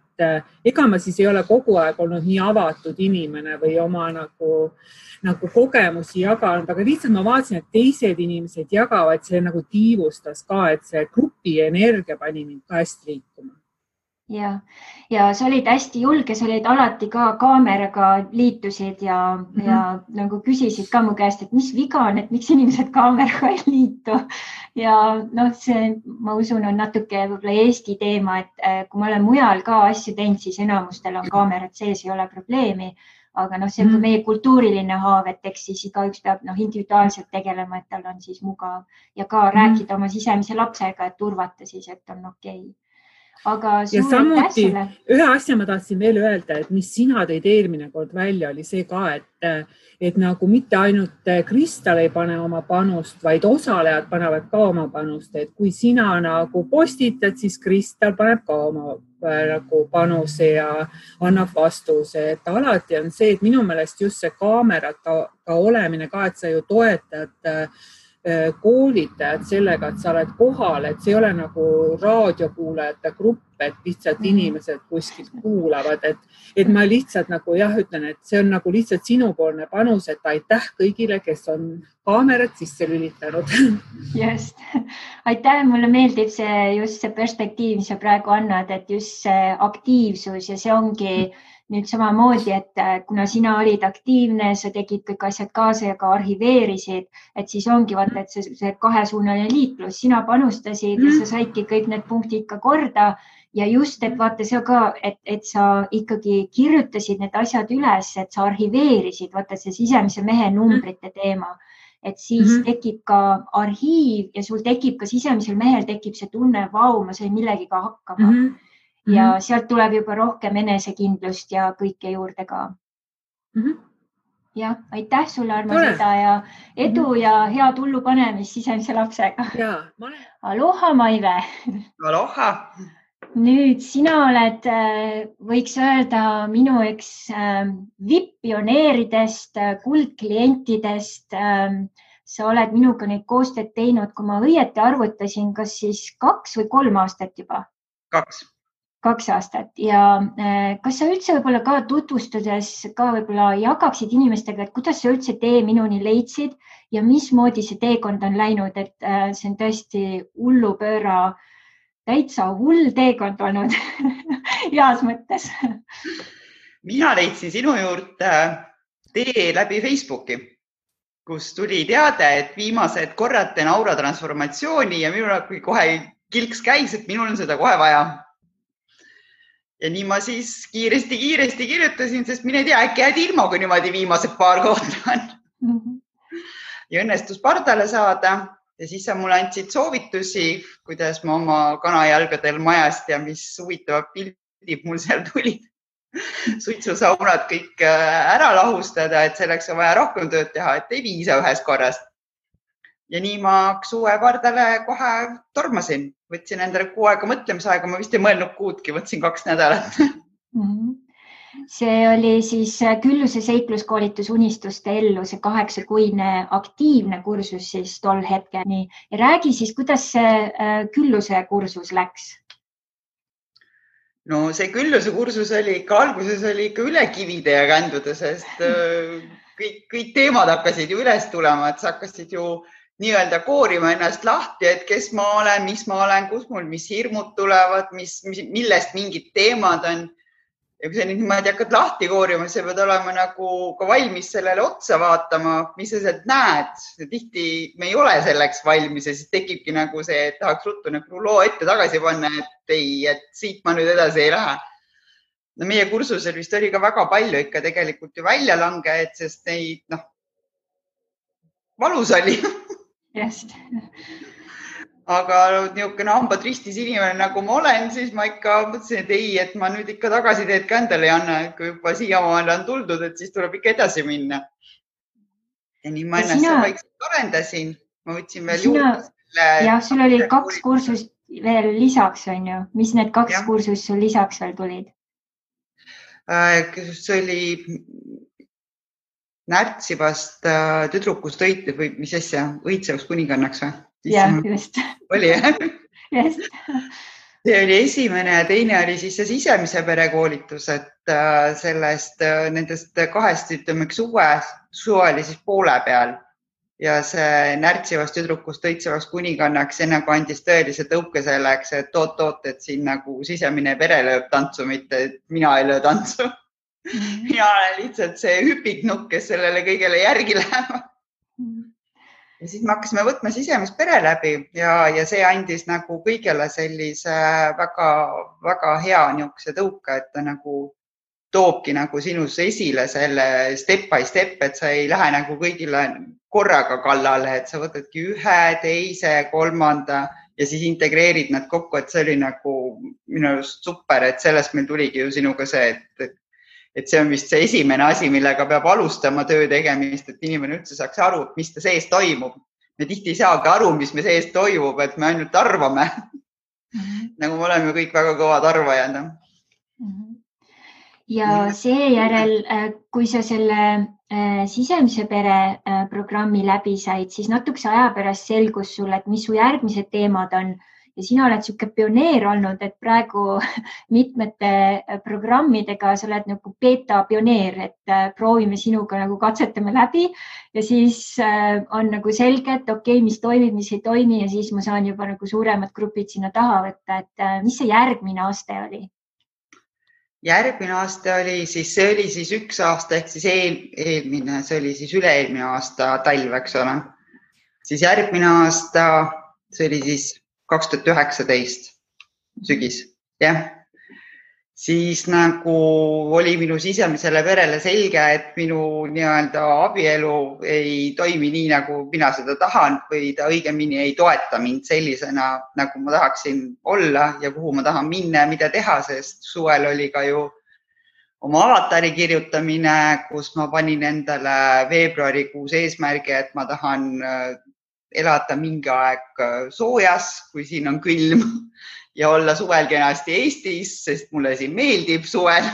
ega ma siis ei ole kogu aeg olnud nii avatud inimene või oma nagu kogemusi jaganud, aga lihtsalt ma vaatasin, et teised inimesed jagavad, see nagu tiivustas ka, et see grupi energia pani mind ka hästi liikuma. Ja sa olid hästi julge, sa olid alati ka kaameraga liitusid ja nagu küsisid ka mu käest, et mis viga on, et miks inimesed kaameraga ei liitu. Ja see, ma usun, on natuke võib-olla Eesti teema, et kui ma olen mujal ka asju teinud, siis enamustel on kaamerad sees, ei ole probleemi. Aga see on meie kultuuriline haav, et eks siis igaüks peab individuaalselt tegelema, et tal on siis mugav ja ka rääkida oma sisemise lapsega, et turvata siis, et on okei. Aga ja samuti ühe asja ma tahtsin veel öelda, et mis sina tõid eelmine kord välja, oli see ka, et nagu mitte ainult Kristal ei pane oma panust, vaid osalejad panevad ka oma panust, et kui sina nagu postitad, siis Kristal paneb ka oma nagu panuse ja annab vastuse, et alati on see, et minu meelest just see kaamerata ka olemine ka, et sa ju toetad koolitajad sellega, et sa oled kohal, et see ei ole nagu raadiokuulajate grupp, et lihtsalt inimesed kuskilt kuulavad, et ma lihtsalt nagu ütlen, et see on nagu lihtsalt sinupoolne panus, et aitäh kõigile, kes on kaamerad sisse lülitanud. Just. Aitäh, mulle meeldib just see perspektiiv, mis sa praegu annad, et just see aktiivsus ja see ongi nüüd samamoodi, et kuna sina olid aktiivne, sa tegid kõik asjad kaasa ja ka arhiveerisid, et siis ongi vaata, et see kahesuunaline liiklus, sina panustasid ja sa saidki kõik need punktid ka korda ja just, et vaata see ka, et sa ikkagi kirjutasid need asjad üles, et sa arhiveerisid, vaata see sisemise mehe numbrite teema, et siis tekib ka arhiiv ja sul tekib ka sisemisel mehel tekib see tunne, vau, ma sain millegiga hakkama. Ja sealt tuleb juba rohkem enesekindlust ja kõike juurde ka. Ja, aitäh sulle, Armo, seda ja edu ja head hullu panemist sisemise lapsega. Aloha, Maive. Aloha. Nüüd sina oled, võiks öelda, minu üks VIP-pioneeridest, kuldklientidest. Sa oled minuga neid koostööd teinud, kui ma õieti arvutasin, kas siis 2 või 3 aastat juba? 2 aastat ja kas sa üldse võib-olla ka tutvustades ka võib-olla jagaksid inimestega, et kuidas sa üldse tee minuni leidsid ja mismoodi see teekond on läinud, et see on tõesti hullupööra, täitsa hull teekond olnud heas mõttes. Mina leidsin sinu juurde tee läbi Facebooki, kus tuli teade, et viimased korrad teen aura transformatsiooni ja minul kohe kilks käis, et minul on seda kohe vaja. Ja nii ma siis kiiresti kirjutasin, sest mine tea, äkki jääd ilma, kui niimoodi viimased 2 kohta on. Ja õnnestus pardale saada ja siis sa mulle andsid soovitusi, kuidas ma oma kanajalgadel majast ja mis huvitavad pildid mul seal tulid. Suitsusaunad kõik ära lahustada, et selleks on vaja rohkem tööd teha, et ei piisa ühest korrast. ja nii ma suve pardale kohe tormasin, võtsin endale kuu aega mõtlemisaega, ma vist ei mõelnud kuudki, võtsin 2 nädalat. See oli siis Külluse seikluskoolitus Unistuste ellu, see 8-kuine aktiivne kursus siis tol hetkel. Nii. Ja räägi siis, kuidas see Külluse kursus läks? No see Külluse kursus oli ikka, alguses oli ikka üle kivide ja kändude, sest kõik teemad hakkasid ju üles tulema, et sa hakkasid ju nii-öelda koorima ennast lahti, et kes ma olen, mis ma olen, kus mul, mis hirmud tulevad, millest mingid teemad on. Ja kui sa nüüd niimoodi hakkad lahti koorima, siis sa pead olema nagu ka valmis sellele otsa vaatama, mis sa sealt näed. Tihti me ei ole selleks valmis ja siis tekibki nagu see, et tahaks ruttu nagu loo ette tagasi panna, et ei, et siit ma nüüd edasi ei lähe. No meie kursusel vist oli ka väga palju ikka tegelikult ju väljalangeid, sest neid, valus oli. Just. Aga niisugune hambad ristis inimene, nagu ma olen, siis ma ikka mõtlesin, et ei, et ma nüüd ikka tagasiteed ka endale ei anna, et kui juba siiamaale on tuldud, et siis tuleb ikka edasi minna. Ja nii ma ennast vaikselt arendasin. Ma võtsin veel juurde. Jah, sul oli 2 kursust veel lisaks, on ju? Mis need 2 kursust sul lisaks veel tulid? See oli närtsivast tüdrukust või mis asja, õitsevast kuningannaks või? Jah, just. Oli, jah? Just. See oli esimene ja teine oli siis see sisemise perekoolitus, et nendest 2, ütleme, suve oli siis poole peal ja see närtsivast tüdrukust õitsevast kuningannaks enne kui andis tõelise tõuke selleks, et oot, et siin nagu sisemine pere lööb tantsu, mitte et mina ei löö tantsu. Mina olen lihtsalt see hüpiknukk, kes sellele kõigele järgi läheb. Ja siis me hakkasime võtma sisemist pere läbi ja see andis nagu kõigele sellise väga, väga hea niisuguse tõuke, et ta nagu toobki nagu sinus esile selle step by step, et sa ei lähe nagu kõigile korraga kallale, et sa võtadki 1, 2, 3 ja siis integreerid nad kokku, et see oli nagu minu arust super, et sellest meil tuligi ju sinuga see, et see on vist see esimene asi, millega peab alustama töö tegemist, et inimene üldse saaks aru, mis ta sees toimub. Me tihti ei saagi aru, mis me sees toimub, et me ainult arvame. Nagu me oleme kõik väga kõvad arvajad. Ja seejärel, kui sa selle sisemise pere programmi läbi said, siis natukese aja pärast selgus sulle, et mis su järgmised teemad on. Ja sina oled siuke pioneer olnud, et praegu mitmete programmidega sa oled nagu beta pioneer, et proovime sinuga nagu katsetame läbi ja siis on nagu selge, et okei, mis toimib, mis ei toimi ja siis ma saan juba nagu suuremad grupid sinna taha võtta, et mis see järgmine aste oli? Järgmine aste oli siis, see oli siis 1 aasta ehk siis eelmine, see oli siis üle-eelmine aasta talv, eks ole. Siis järgmine aasta, see oli siis 2019 sügis, jah. Siis nagu oli minu sisemisele perele selge, et minu nii-öelda abielu ei toimi nii, nagu mina seda tahan või ta õigemini ei toeta mind sellisena, nagu ma tahaksin olla ja kuhu ma tahan minna ja mida teha, sest suvel oli ka ju oma avatari kirjutamine, kus ma panin endale veebruarikuus eesmärgi, et ma tahan elada mingi aeg soojas, kui siin on külm ja olla suvel kenasti Eestis, sest mulle siin meeldib suvel.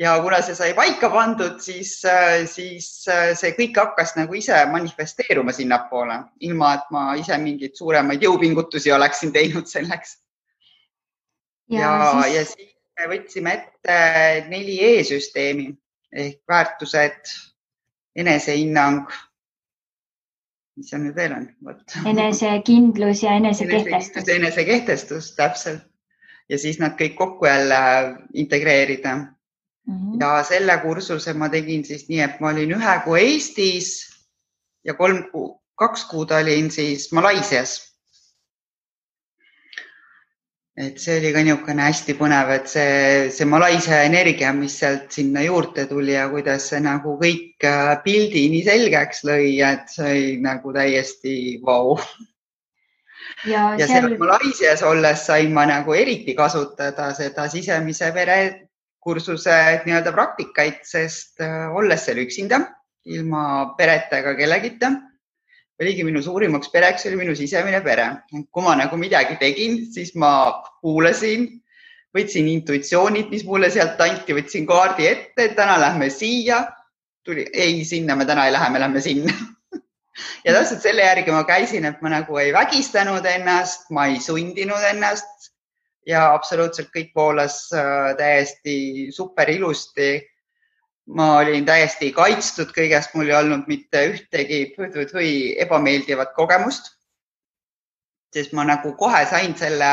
Ja kuna see sai paika pandud, siis see kõik hakkas nagu ise manifesteeruma sinnapoole, ilma et ma ise mingeid suuremaid jõupingutusi oleksin teinud selleks. Ja siis me võtsime ette 4E-süsteemi ehk väärtused, enesehinnang, mis see nüüd veel on? Enesekindlus ja enesekehtestus. Enesekehtestus, täpselt. Ja siis nad kõik kokku jälle integreerida. Ja selle kursuse ma tegin siis nii, et ma olin 1 kuu Eestis ja 2 kuud olin siis Malaisias. Et see oli ka niisugune hästi põnev, et see Malaisia energia, mis sealt sinna juurde tuli ja kuidas see nagu kõik pildi nii selgeks lõi, et see oli nagu täiesti vau. Ja seal Malaisias olles sain ma nagu eriti kasutada seda sisemise pere kursuse nii-öelda praktikaid, sest olles seal üksinda, ilma pereta ega kellegita, oligi minu suurimaks pereks oli minu sisemine pere. Kui ma nagu midagi tegin, siis ma kuulasin, võtsin intuitsioonid, mis mulle sealt anti, võtsin kaardi ette, et täna lähme siia. Ei, sinna me täna ei lähe, me lähme sinna. Ja täpselt selle järgi ma käisin, et ma nagu ei vägistanud ennast, ma ei sundinud ennast ja absoluutselt kõik voolas täiesti super ilusti. Ma olin täiesti kaitstud kõigest, mul ei olnud mitte ühtegi ebameeldivat kogemust, sest ma nagu kohe sain selle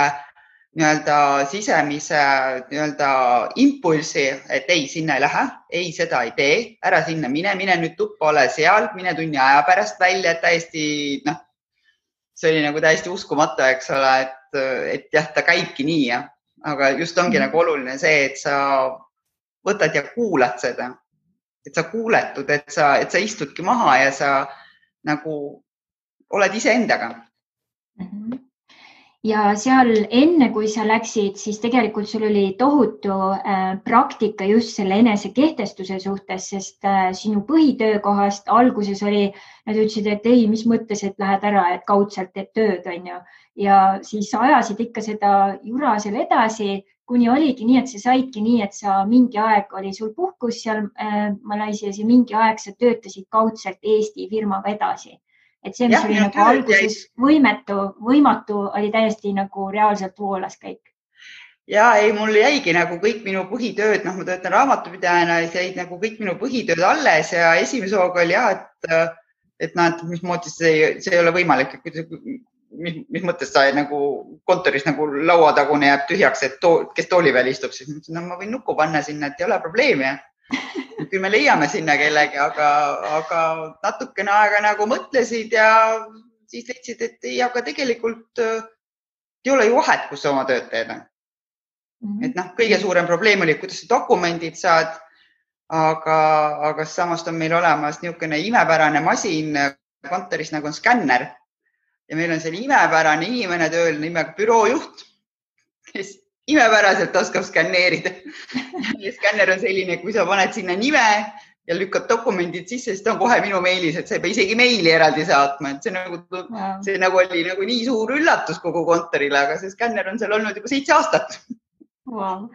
sisemise impulsi, et ei, sinna ei lähe, ei, seda ei tee, ära sinna mine nüüd tuppa, ole seal, mine tunni aja pärast välja, et täiesti, see oli nagu täiesti uskumatu, eks ole, et jah, ta käibki nii, jah. Aga just ongi nagu oluline see, et sa võtad ja kuulad seda, et sa kuuletud, et sa istudki maha ja sa nagu oled iseendaga. Ja seal enne, kui sa läksid, siis tegelikult sul oli tohutu praktika just selle enesekehtestuse suhtes, sest sinu põhitöökohast alguses oli, nad ütlesid, et ei, mis mõttes, et lähed ära, et kaudselt teed tööd, on ju. Ja siis ajasid ikka seda jura seal edasi, kuni oligi nii, et sa saidki nii, et sa mingi aeg oli sul puhkus seal Malaisias ja mingi aeg sa töötasid kaudselt Eesti firmaga edasi. Et see, mis oli nagu alguses võimatu, oli täiesti nagu reaalselt voolas kõik. Ja ei, mul jäigi nagu kõik minu põhitööd, ma töötan raamatupidajana, jäid nagu kõik minu põhitööd alles ja esimese hooga oli et mismoodi see ei ole võimalik, mis mõttes sa nagu kontoris nagu lauatagune jääb tühjaks, et kes tooli peal istub, siis mõtlesin, ma võin nukku panna sinna, et ei ole probleemi. Küll me leiame sinna kellegi, aga natukene aega nagu mõtlesid ja siis leidsid, et ei, aga tegelikult ei ole ju vahet, kus sa oma tööd teed. Et kõige suurem probleem oli, kuidas sa dokumendid saad, aga samast on meil olemas niisugune imepärane masin kontoris nagu on skänner ja meil on selline imepärane inimene tööl nimega büroojuht, kes imepäraselt oskab skänneerida. Skänner on selline, kui sa paned sinna nime ja lükkad dokumendid sisse, siis ta on kohe minu meilis, et sa ei pea isegi meili eraldi saatma. Et see nagu oli nagu nii suur üllatus kogu kontorile, aga see skänner on seal olnud juba 7 aastat. Wow.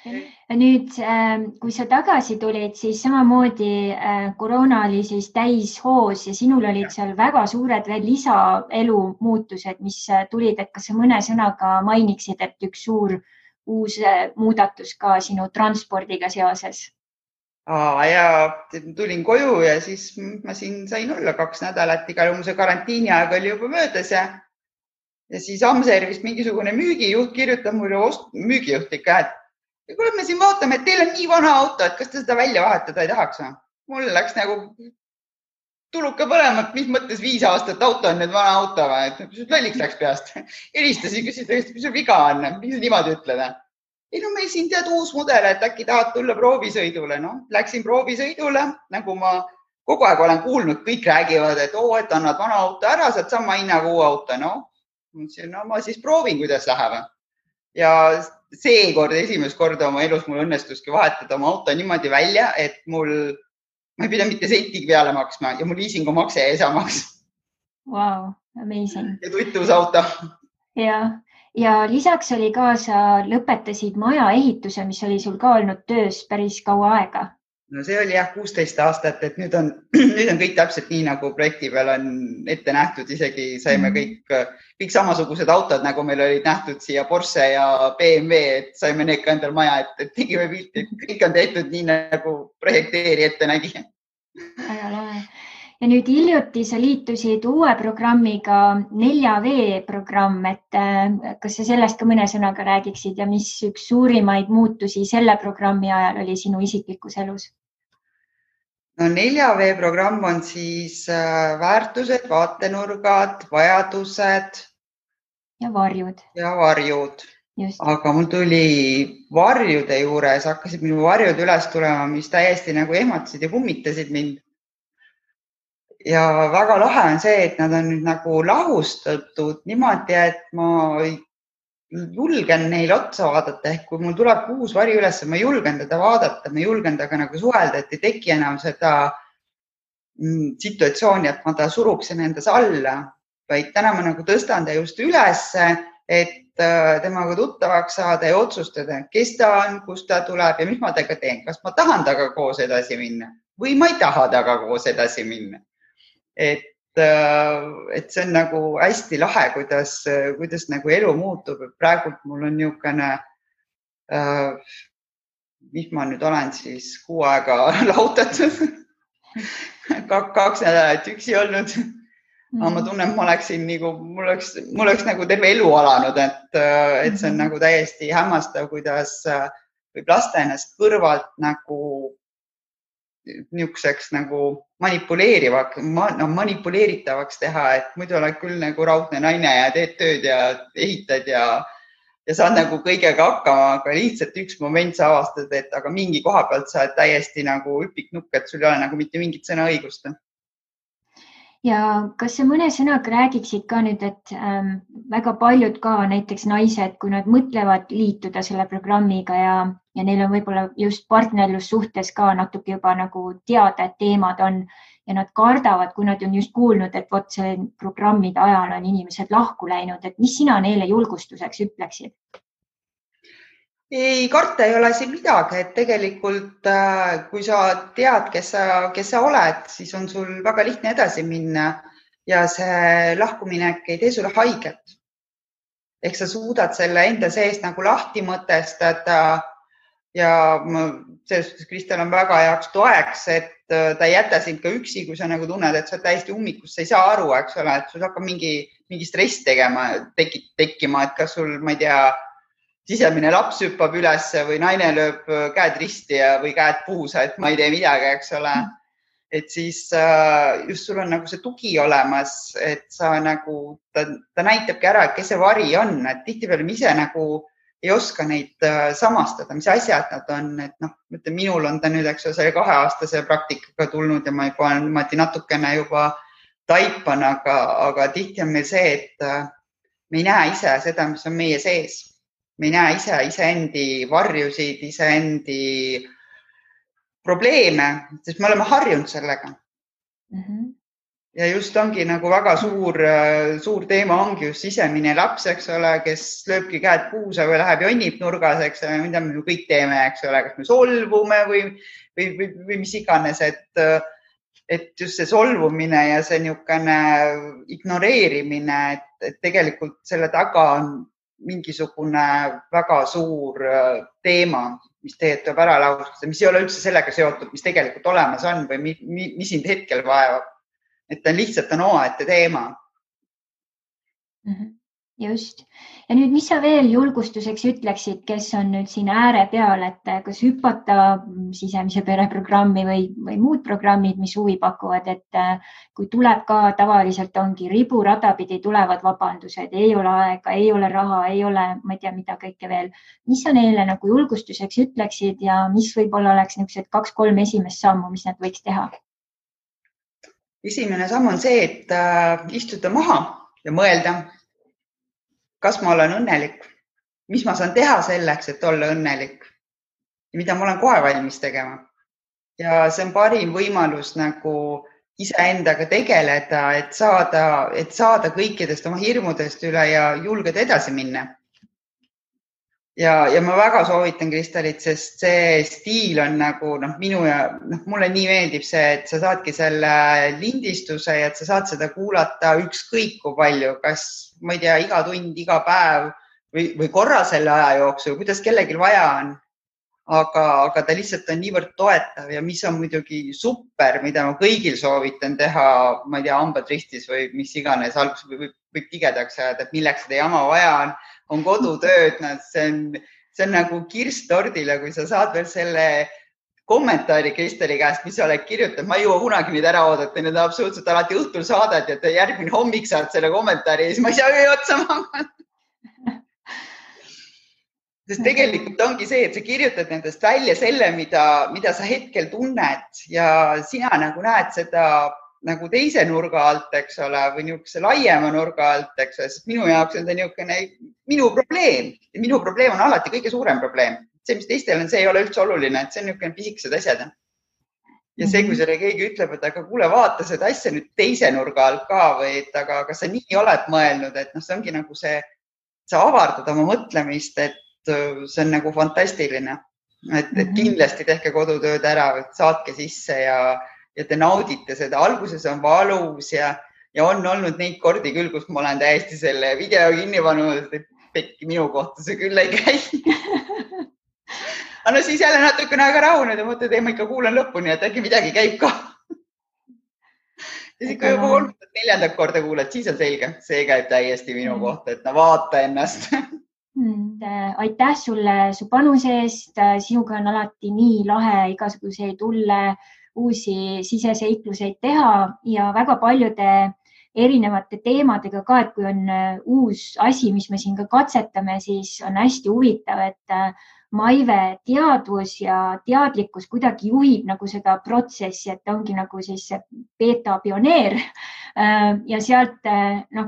Nüüd, kui sa tagasi tulid, siis samamoodi koroona oli siis täis hoos ja sinul olid seal väga suured veel lisaelu muutused, mis tulid, et kas sa mõne sõnaga mainiksid, et üks suur uus muudatus ka sinu transpordiga seoses? Ja tulin koju ja siis ma siin sain olla 2 nädalat, igal juhul see karantiini aeg oli juba möödas ja siis Amservist mingisugune müügijuht kirjutab mulle müügijuht ikka, et kuule, me siin vaatame, et teil on nii vana auto, et kas te seda välja vahetada ei tahaks? Mul läks nagu tuluka põlema, et mis mõttes 5 aastat auto on nüüd vana auto, et lolliks läks peast. Helistasin, küsisin, mis sul viga on, mis sa niimoodi ütled? Ei, no meil siin tead uus mudel, et äkki tahad tulla proovisõidule. Läksin proovisõidule, nagu ma kogu aeg olen kuulnud, kõik räägivad, et et annad vana auto ära, saad sama hinnaga uue auto. Ma siis proovin, kuidas läheb. Ja seekord esimest korda oma elus mul õnnestuski vahetada oma auto niimoodi välja, et ma ei pida mitte sentigi peale maksma ja mul liisingu makse jäi samaks. Wow, amazing. Ja tutvus auto. Ja lisaks oli ka, sa lõpetasid maja ehituse, mis oli sul ka olnud töös päris kaua aega. No see oli 16 aastat, et nüüd on kõik täpselt nii, nagu projekti peal on ette nähtud. Isegi saime kõik samasugused autod, nagu meil olid nähtud siia Porsche ja BMW, et saime need ka endal maja, et tegime pilti. Kõik on tehtud nii, nagu projekteeri ette nägi. Väga lahe. Ja nüüd hiljuti sa liitusid uue programmiga 4V programm, et kas sa sellest ka mõne sõnaga räägiksid ja mis üks suurimaid muutusi selle programmi ajal oli sinu isiklikus elus? No 4V programm on siis väärtused, vaatenurgad, vajadused ja varjud. Just. Aga mul tuli varjude juures, hakkasid minu varjud üles tulema, mis täiesti nagu ehmatasid ja kummitasid mind. Ja väga lahe on see, et nad on nüüd nagu lahustatud niimoodi, et ma julgen neil otsa vaadata. Ehk kui mul tuleb uus vari üles, ma julgen teda vaadata, ma julgen taga nagu suhelda, et ei teki enam seda situatsiooni, et ma ta suruksin endas alla, vaid täna ma nagu tõstan ta just ülesse, et temaga tuttavaks saada ja otsustada, kes ta on, kust ta tuleb ja mis ma temaga teen. Kas ma tahan temaga koos edasi minna või ma ei taha temaga koos edasi minna. Et see on nagu hästi lahe, kuidas nagu elu muutub. Praegult mul on niisugune, mis ma nüüd olen siis 6 aega lahutatud, 2 nädalat üksi olnud. Ma tunnen, et ma oleksin nagu, mul oleks nagu terve elu alanud, et see on nagu täiesti hämmastav, kuidas võib lasta ennast kõrvalt nagu niisuguseks nagu manipuleeritavaks teha, et muidu oled küll nagu raudne naine ja teed tööd ja ehitad ja saad nagu kõigega hakkama, aga lihtsalt üks moment sa avastad, et aga mingi koha pealt sa oled täiesti nagu üpiknukk, et sul ei ole nagu mitte mingit sõnaõigust. Ja kas sa mõne sõnaga räägiksid ka nüüd, et väga paljud ka näiteks naised, kui nad mõtlevad liituda selle programmiga ja neil on võib-olla just partnerlussuhtes ka natuke juba nagu teada, et teemad on ja nad kardavad, kui nad on just kuulnud, et vot see programmide ajal on inimesed lahku läinud, et mis sina neile julgustuseks ütleksid? Ei, karta ei ole siin midagi, et tegelikult kui sa tead, kes sa oled, siis on sul väga lihtne edasi minna ja see lahkuminek ei tee sulle haiget. Ehk sa suudad selle enda sees nagu lahti mõtestada ja selles suhtes Kristel on väga heaks toeks, et ta ei jäta sind ka üksi, kui sa nagu tunned, et sa oled täiesti ummikus, sa ei saa aru, eks ole, et sul hakkab mingi stress tekkima, et kas sul, ma ei tea, sisemine laps hüppab üles või naine lööb käed risti või käed puusa, et ma ei tee midagi, eks ole. Et siis just sul on nagu see tugi olemas, et sa nagu, ta näitabki ära, et kes see vari on, et tihtipeale me ise nagu ei oska neid samastada, mis asjad nad on, et noh, mõtle, minul on ta nüüd, eks ole, selle 2-aastase praktikaga tulnud ja ma juba natukene juba taipan, aga tihti on meil see, et me ei näe ise seda, mis on meie sees. Me ei näe iseendi varjusid, iseendi probleeme, sest me oleme harjunud sellega. Ja just ongi nagu väga suur teema ongi just sisemine laps, eks ole, kes lööbki käed puusa või läheb jonnib nurgas, eks ole, mida me kõik teeme, eks ole, kas me solvume või mis iganes, et just see solvumine ja see niisugune ignoreerimine, et tegelikult selle taga on mingisugune väga suur teema, mis tegelikult tuleb ära laustada, mis ei ole üldse sellega seotud, mis tegelikult olemas on või mis sind hetkel vaevab. Et ta lihtsalt on omaette teema. Just. Ja nüüd, mis sa veel julgustuseks ütleksid, kes on nüüd siin ääre peal, et kas hüpata sisemise pere programmi või muud programmid, mis huvi pakuvad, et kui tuleb ka tavaliselt ongi riburada pidi tulevad vabandused, ei ole aega, ei ole raha, ei ole, ma ei tea, mida kõike veel. Mis sa neile nagu julgustuseks ütleksid ja mis võib-olla oleks niisugused 2-3 esimest sammu, mis nad võiks teha? Esimene samm on see, et istuda maha ja mõelda, kas ma olen õnnelik, mis ma saan teha selleks, et olla õnnelik ja mida ma olen kohe valmis tegema. Ja see on parim võimalus nagu iseendaga tegeleda, et saada kõikidest oma hirmudest üle ja julgeda edasi minna. Ja ma väga soovitan Kristelit, sest see stiil on nagu minu ja mulle nii meeldib see, et sa saadki selle lindistuse ja et sa saad seda kuulata ükskõik kui palju, kas ma ei tea, iga tund, iga päev või korra selle aja jooksul, kuidas kellelgi vaja on. Aga ta lihtsalt on niivõrd toetav ja mis on muidugi super, mida ma kõigil soovitan teha, ma ei tea, hambad ristis või mis iganes, alguses võib tigedaks ajada, et milleks seda jama vaja on kodutööd, see on nagu kirst tordile, kui sa saad veel selle kommentaari Kristeli käest, mis sa oled kirjutanud, ma ei jõua kunagi neid ära oodata, need on absoluutselt alati õhtul saadad ja järgmine hommik saad selle kommentaari ja siis ma ei saa otsa magada. Sest tegelikult ongi see, et sa kirjutad nendest välja selle, mida sa hetkel tunned ja sina nagu näed seda nagu teise nurga alt, eks ole, või niisuguse laiema nurga alt, eks ole, sest minu jaoks on see niisugune minu probleem ja minu probleem on alati kõige suurem probleem. See, mis teistel on, see ei ole üldse oluline, et see on niisugune pisikesed asjad. ja see, kui selle keegi ütleb, et aga kuule, vaata seda asja nüüd teise nurga alt ka või et aga kas sa nii oled mõelnud, et noh, see ongi nagu see, sa avardad oma mõtlemist, et see on nagu fantastiline, et kindlasti tehke kodutööd ära, saatke sisse ja te naudite seda. Alguses on valus ja on olnud neid kordi küll, kus ma olen täiesti selle video kinni pannud, et pekki minu kohta see küll ei käi. Aga no siis jälle natukene aega rahunenud ja mõtled, et ma ikka kuulan lõpuni, et äkki midagi käib ka. Ja siis ikka juba 3-4 korda kuulad, siis on selge, see käib täiesti minu kohta, et no vaata ennast. Aitäh sulle su panuse eest. Sinuga on alati nii lahe igasuguseid tulle uusi siseseikluseid teha ja väga paljude erinevate teemadega ka, et kui on uus asi, mis me siin ka katsetame, siis on hästi huvitav, et Maive teadvus ja teadlikkus kuidagi juhib nagu seda protsessi, et ta ongi nagu siis beta pioneer ja sealt,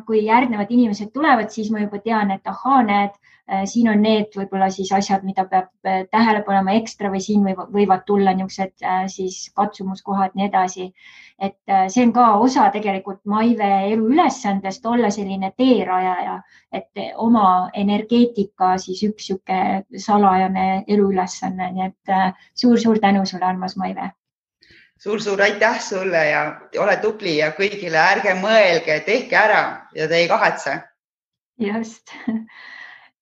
kui järgnevad inimesed tulevad, siis ma juba tean, et ahaa, näed, siin on need võib-olla siis asjad, mida peab tähele panema ekstra või siin võivad tulla niisugused siis katsumuskohad ja nii edasi. Et see on ka osa tegelikult Maive elu ülesandest olla selline teerajaja, et oma energeetika siis üks siuke salajane elu ülesanne. Nii et suur-suur tänu sulle, armas Maive. Suur-suur aitäh sulle ja ole tubli ja kõigile ärge mõelge, tehke ära ja te ei kahetse. Just.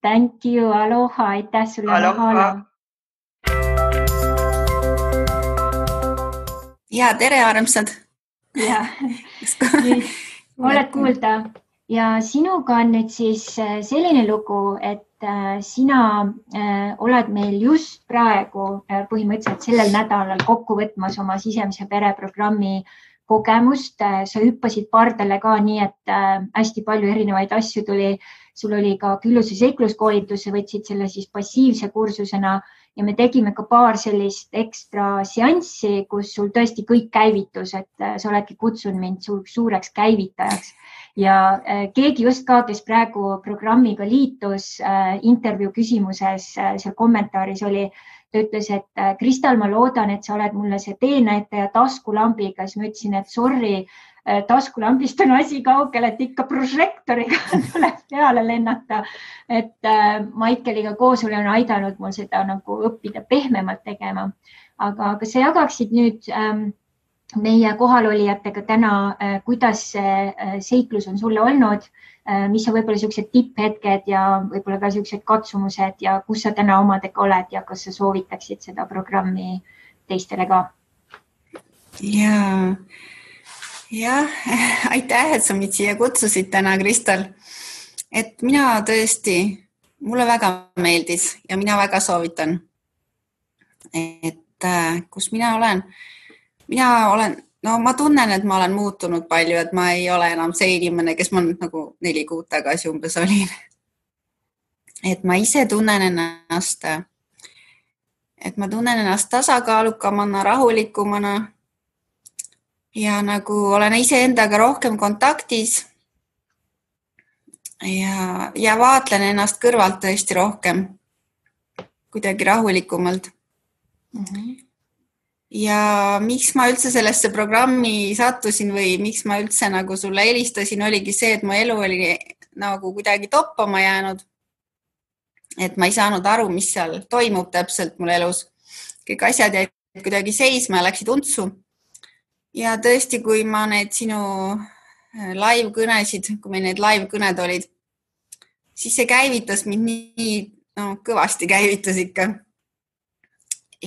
Thank you. Aloha. Aitäh sulle. Aloha. Ja, tere armsad. Ja, oled kuulda. Ja sinuga on nüüd siis selline lugu, et sina oled meil just praegu põhimõtteliselt sellel nädalal kokku võtmas oma sisemise pereprogrammi kogemust. Sa hüppasid pardale ka nii, et hästi palju erinevaid asju tuli. Sul oli ka külluse seikluskoolitus, sa võtsid selle siis passiivse kursusena ja me tegime ka paar sellist ekstra seanssi, kus sul tõesti kõik käivitus, et sa oledki kutsunud mind suureks käivitajaks. Ja keegi just ka, kes praegu programmiga liitus, intervjuu küsimuses seal kommentaaris oli, ta ütles, et Kristal, ma loodan, et sa oled mulle see teenäitaja taskulambiga, siis ma ütlesin, et sorry, taskulambist on asi kaugel, et ikka prožektoriga tuleb peale lennata. Et Maikeliga koos olen aidanud mul seda nagu õppida pehmemalt tegema. Aga kas sa jagaksid nüüd meie kohalolijatega täna, kuidas see seiklus on sulle olnud, mis on võib-olla sellised tipphetked ja võib-olla ka sellised katsumused ja kus sa täna omadega oled ja kas sa soovitaksid seda programmi teistele ka? Jah, aitäh, et sa mind siia kutsusid täna, Kristal. Et mina tõesti, mulle väga meeldis ja mina väga soovitan. Et kus mina olen, ma tunnen, et ma olen muutunud palju, et ma ei ole enam see inimene, kes ma nagu 4 kuud tagasi umbes olin. Et ma ise tunnen ennast, tasakaalukamana, rahulikumana. Ja nagu olen iseendaga rohkem kontaktis ja vaatlen ennast kõrvalt tõesti rohkem, kuidagi rahulikumalt. Ja miks ma üldse sellesse programmi sattusin või miks ma üldse nagu sulle helistasin, oligi see, et mu elu oli nagu kuidagi toppama jäänud. Et ma ei saanud aru, mis seal toimub täpselt mul elus. Kõik asjad jäid kuidagi seisma ja läksid untsu. Ja tõesti, kui ma need sinu live-kõnesid, kui meil need live-kõned olid, siis see käivitas mind nii, kõvasti käivitas ikka.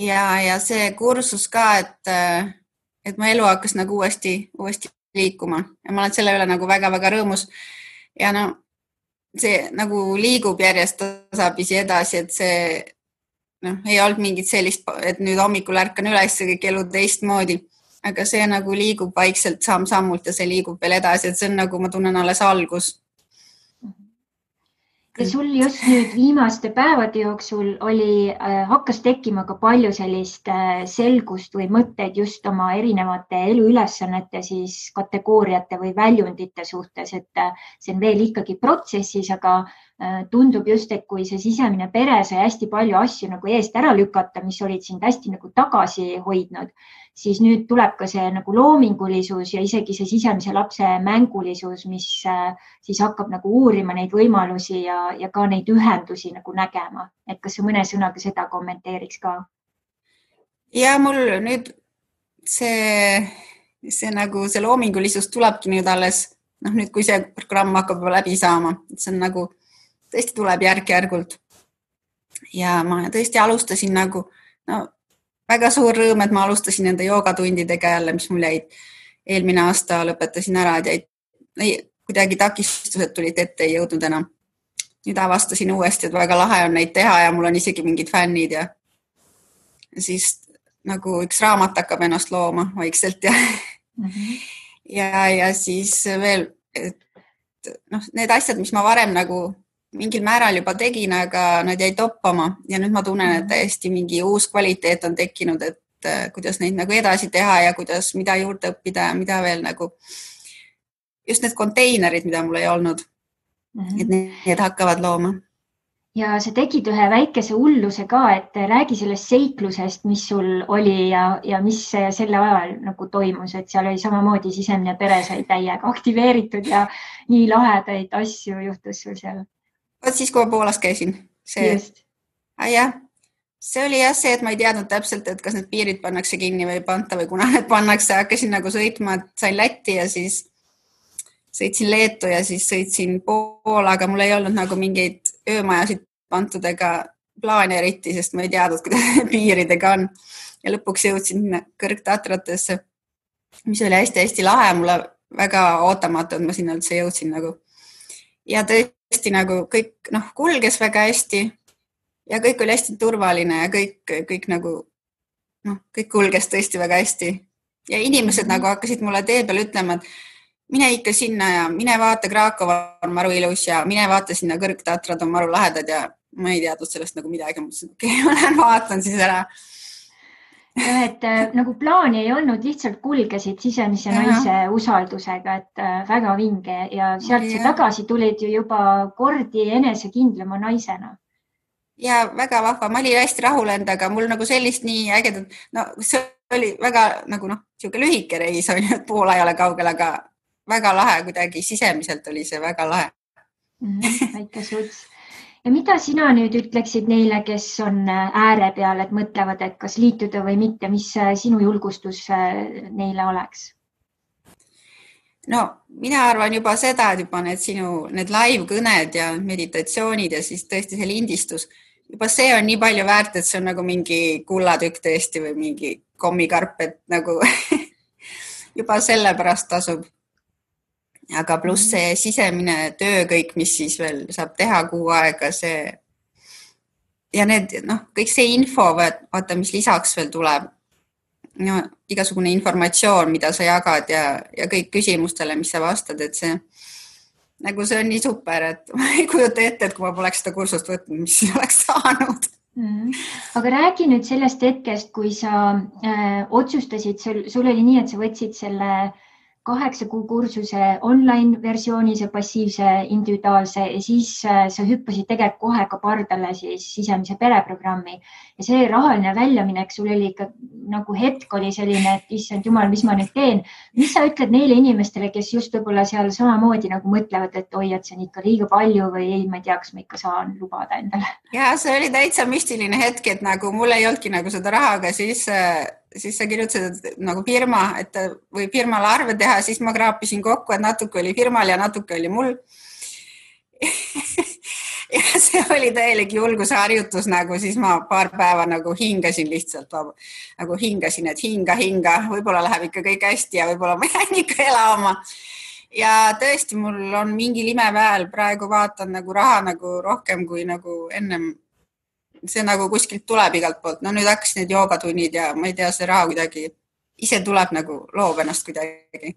Ja see kursus ka, et mu elu hakkas nagu uuesti liikuma ja ma olen selle üle nagu väga-väga rõõmus. Ja see nagu liigub järjest tasapisi edasi, et see ei olnud mingit sellist, et nüüd hommikul ärkan üles ja kõik elu teistmoodi. Aga see nagu liigub vaikselt samm-sammult ja see liigub veel edasi, et see on nagu, ma tunnen alles algus. Ja sul just nüüd viimaste päevade jooksul hakkas tekkima ka palju sellist selgust või mõtteid just oma erinevate eluülesannete siis kategooriate või väljundite suhtes, et see on veel ikkagi protsessis, aga tundub just, et kui see sisemine pere sai hästi palju asju nagu eest ära lükata, mis olid sind hästi nagu tagasi hoidnud, siis nüüd tuleb ka see nagu loomingulisus ja isegi see sisemise lapse mängulisus, mis siis hakkab nagu uurima neid võimalusi ja ka neid ühendusi nagu nägema. Et kas sa mõne sõnaga seda kommenteeriks ka? Ja mul nüüd see nagu see loomingulisus tulebki nüüd alles, nüüd kui see programm hakkab läbi saama, see on nagu tõesti tuleb järk-järgult. Ja ma tõesti alustasin nagu, väga suur rõõm, et ma alustasin nende joogatundidega jälle, mis mul jäid eelmine aasta lõpetasin ära, et kuidagi takistused tulid ette, ei jõudnud enam. Nüüd avastasin uuesti, et väga lahe on neid teha ja mul on isegi mingid fännid ja siis nagu üks raamat hakkab ennast looma vaikselt ja siis veel, et need asjad, mis ma varem nagu mingil määral juba tegin, aga nad jäi toppama ja nüüd ma tunnen, et täiesti mingi uus kvaliteet on tekkinud, et kuidas neid nagu edasi teha ja kuidas, mida juurde õppida ja mida veel nagu just need konteinerid, mida mul ei olnud, et need hakkavad looma. Ja sa tegid ühe väikese hulluse ka, et räägi sellest seiklusest, mis sul oli ja mis selle ajal nagu toimus, et seal oli samamoodi sisemine pere sai täiega aktiveeritud ja nii lahedaid asju juhtus sul seal. Siis, kui ma Poolas käisin. See oli jah see, et ma ei teadnud täpselt, et kas need piirid pannakse kinni või ei panta või kuna need pannakse. Hakkasin nagu sõitma, et sain Lätti ja siis sõitsin Leetu ja siis sõitsin Poola, aga mul ei olnud nagu mingeid öömajasid pantud ega plaane eriti, sest ma ei teadnud, kuidas piiridega on. Ja lõpuks jõudsin Kõrgtatratesse, mis oli hästi-hästi lahe. Mulle väga ootamatu, et ma sinna üldse jõudsin nagu. Ja tõesti nagu kõik kulges väga hästi ja kõik oli hästi turvaline ja kõik nagu kõik kulges tõesti väga hästi. Ja inimesed nagu hakkasid mulle tee peal ütlema, et mine ikka sinna ja mine vaata, Krakova on maru ilus ja mine vaata sinna Kõrgtatrad on maru lahedad ja ma ei teadnud sellest nagu midagi. Mõtlesin, okei, ma lähen vaatan siis ära. Et nagu plaani ei olnud, lihtsalt kulgesid sisemise naise usaldusega, et väga vinge ja sealt sa tagasi tulid ju juba kordi enesekindlama naisena. Ja väga vahva, ma olin hästi rahul endaga, mul nagu sellist nii ägedat, see oli väga nagu siuke lühike reis, et Poola ei ole kaugel, aga väga lahe kuidagi sisemiselt oli see väga lahe. Väike suts. Ja mida sina nüüd ütleksid neile, kes on ääre peal, et mõtlevad, et kas liituda või mitte, mis sinu julgustus neile oleks? Mina arvan juba seda, et juba need live-kõned ja meditatsioonid ja siis tõesti see lindistus, juba see on nii palju väärt, et see on nagu mingi kullatükk tõesti või mingi kommikarp, et nagu juba selle pärast tasub. Aga pluss see sisemine töö kõik, mis siis veel saab teha kuu aega, see ja need, kõik see info, vaata, mis lisaks veel tuleb, igasugune informatsioon, mida sa jagad ja kõik küsimustele, mis sa vastad, et see on nii super, et ma ei kujuta ette, et kui ma poleks seda kursust võtnud, mis oleks saanud. Aga räägi nüüd sellest hetkest, kui sa otsustasid, sul oli nii, et sa võtsid selle 8 kuu kursuse online versiooni, see passiivse individuaalse ja siis sa hüppasid tegelikult kohe ka pardale siis sisemise pereprogrammi ja see rahaline väljaminek sul oli ikka nagu hetk oli selline, et issand jumal, mis ma nüüd teen. Mis sa ütled neile inimestele, kes just võib-olla seal samamoodi nagu mõtlevad, et oi, et see on ikka liiga palju või ei, ma ei tea, kas ma ikka saan lubada endale? Ja see oli täitsa müstiline hetk, et nagu mul ei olnudki nagu seda raha, aga siis sa kirjutasid nagu firma, et või firmale arve teha, siis ma kraapisin kokku, et natuke oli firmal ja natuke oli mul. Ja see oli täielik julguse harjutus, nagu siis ma paar päeva nagu hingasin lihtsalt, nagu hingasin, et hinga, võib-olla läheb ikka kõik hästi ja võib-olla ma jään ikka elama. Ja tõesti, mul on mingi imeväel, praegu vaatan nagu raha nagu rohkem kui nagu ennem. See nagu kuskilt tuleb igalt poolt. Nüüd hakkas need joogatunnid ja ma ei tea, see raha kuidagi ise tuleb nagu loob ennast kuidagi.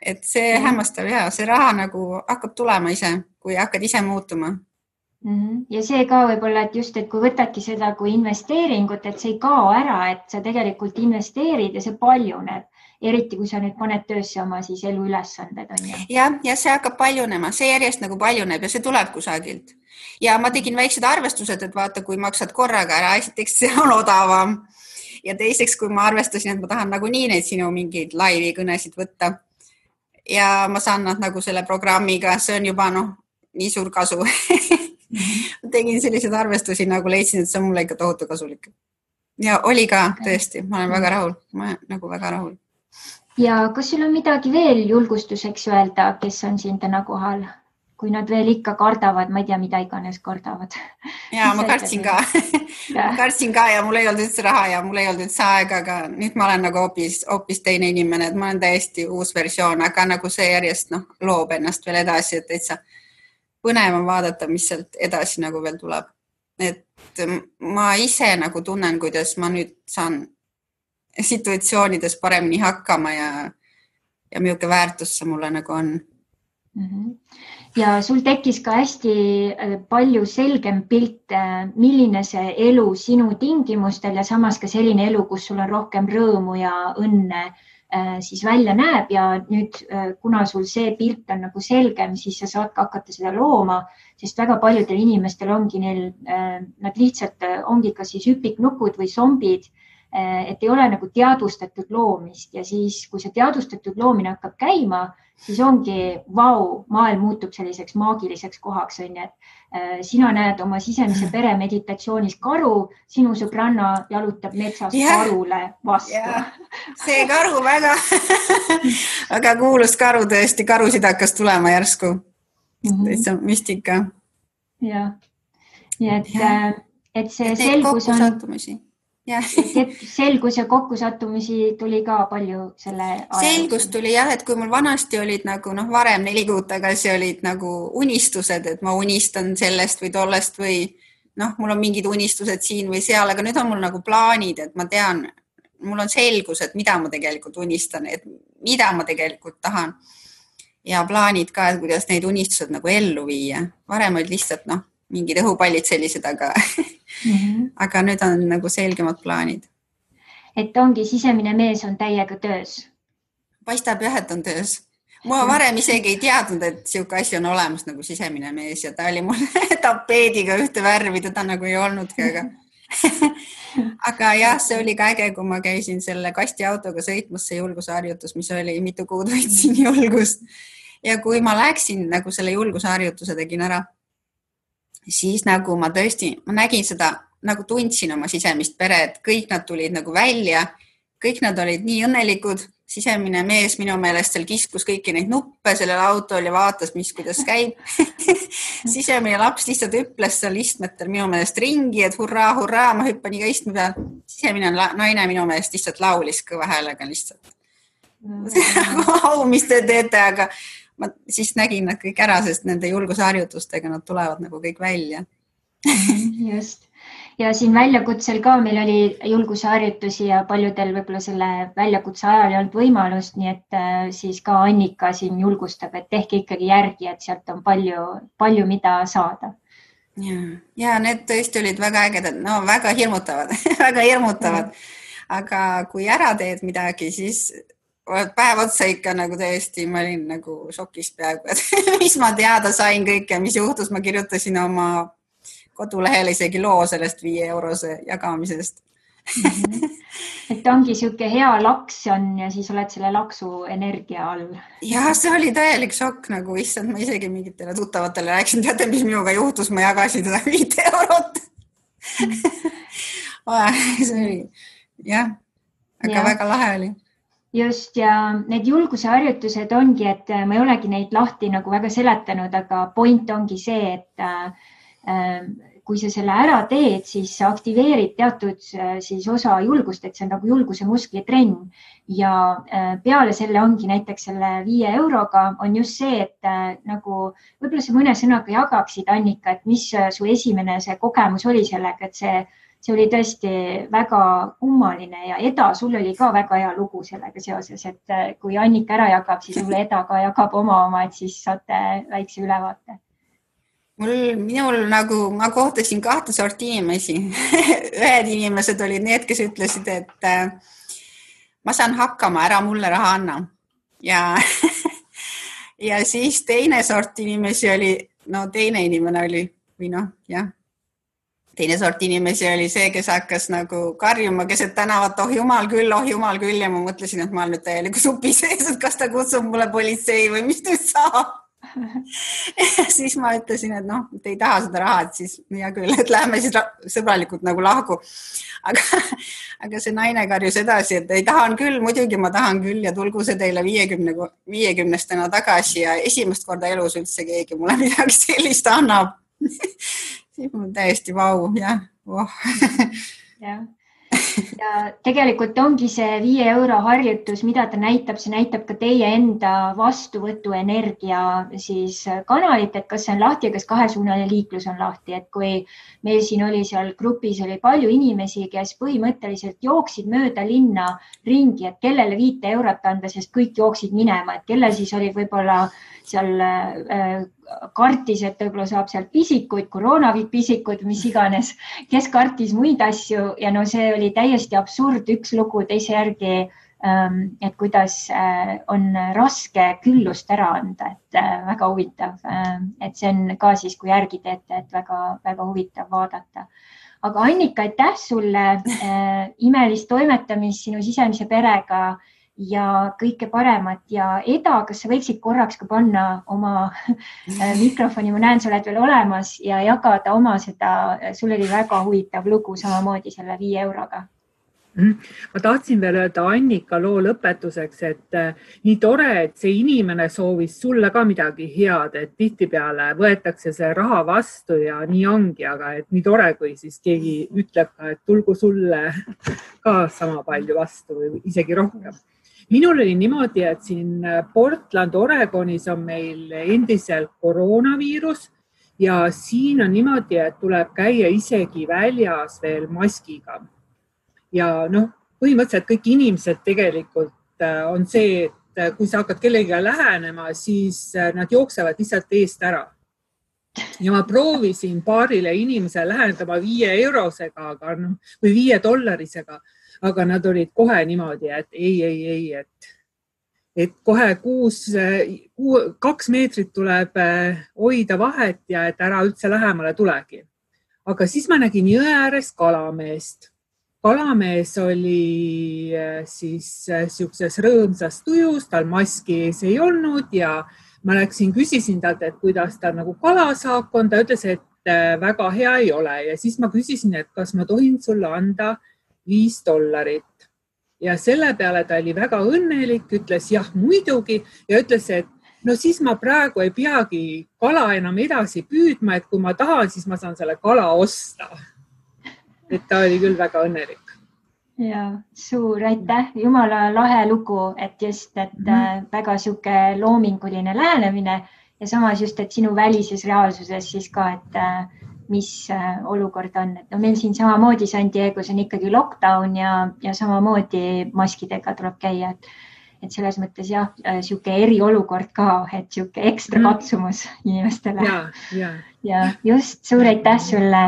Et see hämmastab ja see raha nagu hakkab tulema ise, kui hakkad ise muutuma. Ja see ka võib-olla, et just, et kui võtadki seda kui investeeringut, et see ei kao ära, et sa tegelikult investeerid ja see paljuneb. Eriti, kui sa nüüd paned töösse oma siis elu ülesanded. Ja see hakkab paljunema, see järjest nagu paljuneb ja see tuleb kusagilt. Ja ma tegin väiksed arvestused, et vaata, kui maksad korraga ära, esiteks see on odavam. ja teiseks, kui ma arvestasin, et ma tahan nagunii neid sinu mingeid laivi kõnesid võtta ja ma saan nad nagu selle programmiga, see on juba nii suur kasu. Tegin selliseid arvestusi, nagu leidsin, et see on mulle ikka tohutu kasulik. Ja oli ka tõesti, ma olen väga rahul. Ma olen nagu väga rahul. Ja kas sul on midagi veel julgustuseks öelda, kes on siin täna kohal? Kui nad veel ikka kardavad, ma ei tea, mida iganes kardavad. Ja ma kartsin ka. Kartsin ka ja mul ei olnud üldse raha ja mul ei olnud üldse aega, aga nüüd ma olen nagu hoopis teine inimene, et ma olen täiesti uus versioon, aga nagu see järjest loob ennast veel edasi, et täitsa põnev on vaadata, mis sealt edasi nagu veel tuleb. Et ma ise nagu tunnen, kuidas ma nüüd saan situatsioonides paremini hakkama ja milline väärtus see mulle nagu on. Ja sul tekkis ka hästi palju selgem pilt, milline see elu sinu tingimustel ja samas ka selline elu, kus sul on rohkem rõõmu ja õnne siis välja näeb ja nüüd, kuna sul see pilt on nagu selgem, siis sa saad ka hakata seda looma, sest väga paljudel inimestel ongi neil, nad lihtsalt ongi ka siis hüpiknukud või zombid, et ei ole nagu teadvustatud loomist ja siis, kui see teadvustatud loomine hakkab käima, siis ongi maailm muutub selliseks maagiliseks kohaks, on ju, et sina näed oma sisemise pere meditatsioonis karu, sinu sõbranna jalutab metsas karule vastu. See karu väga kuulus karu tõesti, karusid hakkas tulema järsku. Täitsa müstika. Ja, et see selgus on... Selgus ja kokkusattumisi tuli ka palju selle aja. Selgus tuli jah, et kui mul vanasti olid nagu varem 4 kuud tagasi olid nagu unistused, et ma unistan sellest või tollest või mul on mingid unistused siin või seal, aga nüüd on mul nagu plaanid, et ma tean, mul on selgus, et mida ma tegelikult unistan, et mida ma tegelikult tahan ja plaanid ka, et kuidas neid unistused nagu ellu viia. Varem olid lihtsalt mingid õhupallid sellised, aga nüüd on nagu selgemad plaanid. Et ongi sisemine mees on täiega töös? Paistab jah, et on töös. Ma varem isegi ei teadnud, et siuke asi on olemas nagu sisemine mees ja ta oli mul tapeediga ühte värvi, teda nagu ei olnudki, aga jah, see oli ka äge, kui ma käisin selle kastiautoga sõitmas see julgusharjutus, mis oli mitu kuud võtsin julgust ja kui ma läksin nagu selle julgusharjutuse tegin ära, siis nagu ma tõesti, ma nägin seda, nagu tundsin oma sisemist pere, et kõik nad tulid nagu välja, kõik nad olid nii õnnelikud, sisemine mees minu meelest seal kiskus kõiki neid nuppe sellel autol ja vaatas, kuidas käib. Sisemine laps lihtsalt hüples seal istmetel minu meelest ringi, et hurraa, ma hüppan iga istme peal. Sisemine naine minu meelest lihtsalt laulis kõva häälega lihtsalt. Mis te teete, aga ma siis nägin nad kõik ära, sest nende julgusharjutustega nad tulevad nagu kõik välja. Just. Ja siin väljakutsel ka meil oli julgusharjutusi ja paljudel võib-olla selle väljakutse ajal ei olnud võimalust, nii et siis ka Annika siin julgustab, et tehke ikkagi järgi, et sealt on palju mida saada. Ja need tõesti olid väga ägedad, väga hirmutavad, väga hirmutavad. Aga kui ära teed midagi, siis päev otsa ikka nagu tõesti, ma olin nagu šokis peaaegu, et mis ma teada sain kõike, mis juhtus, ma kirjutasin oma kodulehele isegi loo sellest 5 eurose jagamisest. Et ongi siuke hea laks on ja siis oled selle laksu energia all. Ja see oli täielik šokk, nagu issand, ma isegi mingitele tuttavatele rääksin, teate, mis minuga juhtus, ma jagasin seda 5 eurot. See oli, jah, aga väga lahe oli. Just ja need julguse harjutused ongi, et ma ei olegi neid lahti nagu väga seletanud, aga point ongi see, et kui sa selle ära teed, siis sa aktiveerid teatud siis osa julgust, et see on nagu julguse musklitrenn ja peale selle ongi näiteks selle 5 euroga on just see, et nagu võib-olla sa mõne sõnaga jagaksid, Annika, et mis su esimene see kogemus oli sellega, et see oli tõesti väga kummaline ja Eda, sul oli ka väga hea lugu sellega seoses, et kui Annika ära jagab, siis sulle Eda ka jagab oma, et siis saate väikse ülevaate. Minul nagu, ma kohtasin 2 sorti inimesi. Ühed inimesed olid need, kes ütlesid, et ma saan hakkama, ära mulle raha anna. Ja siis teine sort inimesi oli, teine inimene oli, või jah. teine sort inimesi oli see, kes hakkas nagu karjuma keset tänavat, oh jumal küll ja ma mõtlesin, et ma olen nüüd täieliku supi sees, et kas ta kutsub mulle politsei või mis nüüd saab. Ja siis ma ütlesin, et noh, et ei taha seda raha, et siis hea küll, et lähme siis sõbralikult nagu lahku. Aga see naine karjus edasi, et ei tahan küll, muidugi ma tahan küll ja tulgu see teile 50-stena tagasi ja esimest korda elus üldse keegi mulle midagi sellist annab. Siis mul täiesti vau, jah. Jah. Ja tegelikult ongi see 5 euro harjutus, mida ta näitab, see näitab ka teie enda vastuvõtuenergia siis kanalit, et kas see on lahti ja kas kahesuunaline liiklus on lahti, et kui meil siin oli seal grupis oli palju inimesi, kes põhimõtteliselt jooksid mööda linna ringi, et kellele 5 eurot anda, sest kõik jooksid minema, et kellel siis oli võib-olla seal kartis, et võib-olla saab sealt pisikuid, koroonapisikuid, mis iganes, kes kartis muid asju ja no see oli täiesti absurd, üks lugu teise järgi, et kuidas on raske küllust ära anda, et väga huvitav, et see on ka siis, kui järgi teete, et väga huvitav vaadata. Aga Annika, aitäh sulle imelist toimetamist sinu sisemise perega ja kõike paremat ja Eda, kas sa võiksid korraks ka panna oma mikrofoni, ma näen, sa oled veel olemas ja jagada oma seda, sul oli väga huvitav lugu samamoodi selle 5 euroga. Ma tahtsin veel öelda Annika loo lõpetuseks, et nii tore, et see inimene soovis sulle ka midagi head, et tihtipeale võetakse see raha vastu ja nii ongi, aga et nii tore, kui siis keegi ütleb ka, et tulgu sulle ka sama palju vastu või isegi rohkem. Minul oli niimoodi, et siin Portland, Oregonis on meil endiselt koroonaviirus ja siin on niimoodi, et tuleb käia isegi väljas veel maskiga. Ja noh, põhimõtteliselt kõik inimesed tegelikult on see, et kui sa hakkad kellegagi lähenema, siis nad jooksevad lihtsalt eest ära. Ja ma proovisin paarile inimese lähendama 5 eurosega või 5 dollarisega, aga nad olid kohe niimoodi, et ei, et kohe 2 meetrit tuleb hoida vahet ja et ära üldse lähemale tulegi. Aga siis ma nägin jõe ääres kalameest. Kalamees oli siis siukses rõõmsas tujus, tal maski ees ei olnud ja ma küsisin talt, et kuidas ta nagu kalasaak on. Ta ütles, et väga hea ei ole ja siis ma küsisin, et kas ma tohin sulle anda $5 ja selle peale ta oli väga õnnelik, ütles jah muidugi ja ütles, et no siis ma praegu ei peagi kala enam edasi püüdma, et kui ma tahan, siis ma saan selle kala osta. Et ta oli küll väga õnnelik. Ja, suur aitäh, jumala lahe lugu, et just, et väga siuke loominguline lähenemine ja samas just, et sinu välises reaalsuses siis ka, et mis olukord on. Et no meil siin samamoodi San Diego's on ikkagi lockdown ja samamoodi maskidega tuleb käia. Et selles mõttes jah, siuke eriolukord ka, et siuke ekstra katsumus inimestele. Ja just suur aitäh sulle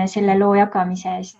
selle loo jagamise eest.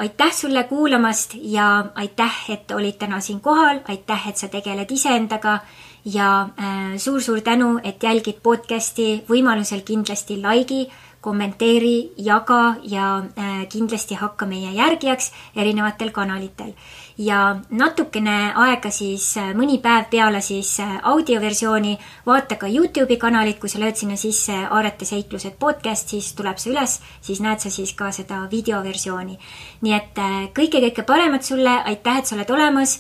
Aitäh sulle kuulamast ja aitäh, et olid täna siin kohal. Aitäh, et sa tegeled iseendaga ja suur tänu, et jälgid podcasti. Võimalusel kindlasti likei, kommenteeri, jaga ja kindlasti hakka meie järgijaks erinevatel kanalitel. Ja natukene aega siis mõni päev peale siis audioversiooni vaata ka YouTube'i kanalit, kui sa lööd sinna sisse Aarete seiklused podcast, siis tuleb see üles, siis näed sa siis ka seda videoversiooni. Nii et kõike paremat sulle, aitäh, et sa oled olemas.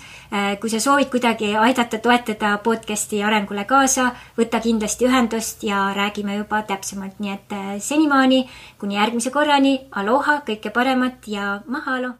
Kui sa soovid kuidagi aidata toetada podcasti arengule kaasa, võta kindlasti ühendust ja räägime juba täpsemalt. Nii et senimaani, kuni järgmise korrani, aloha, kõike paremat ja mahalo!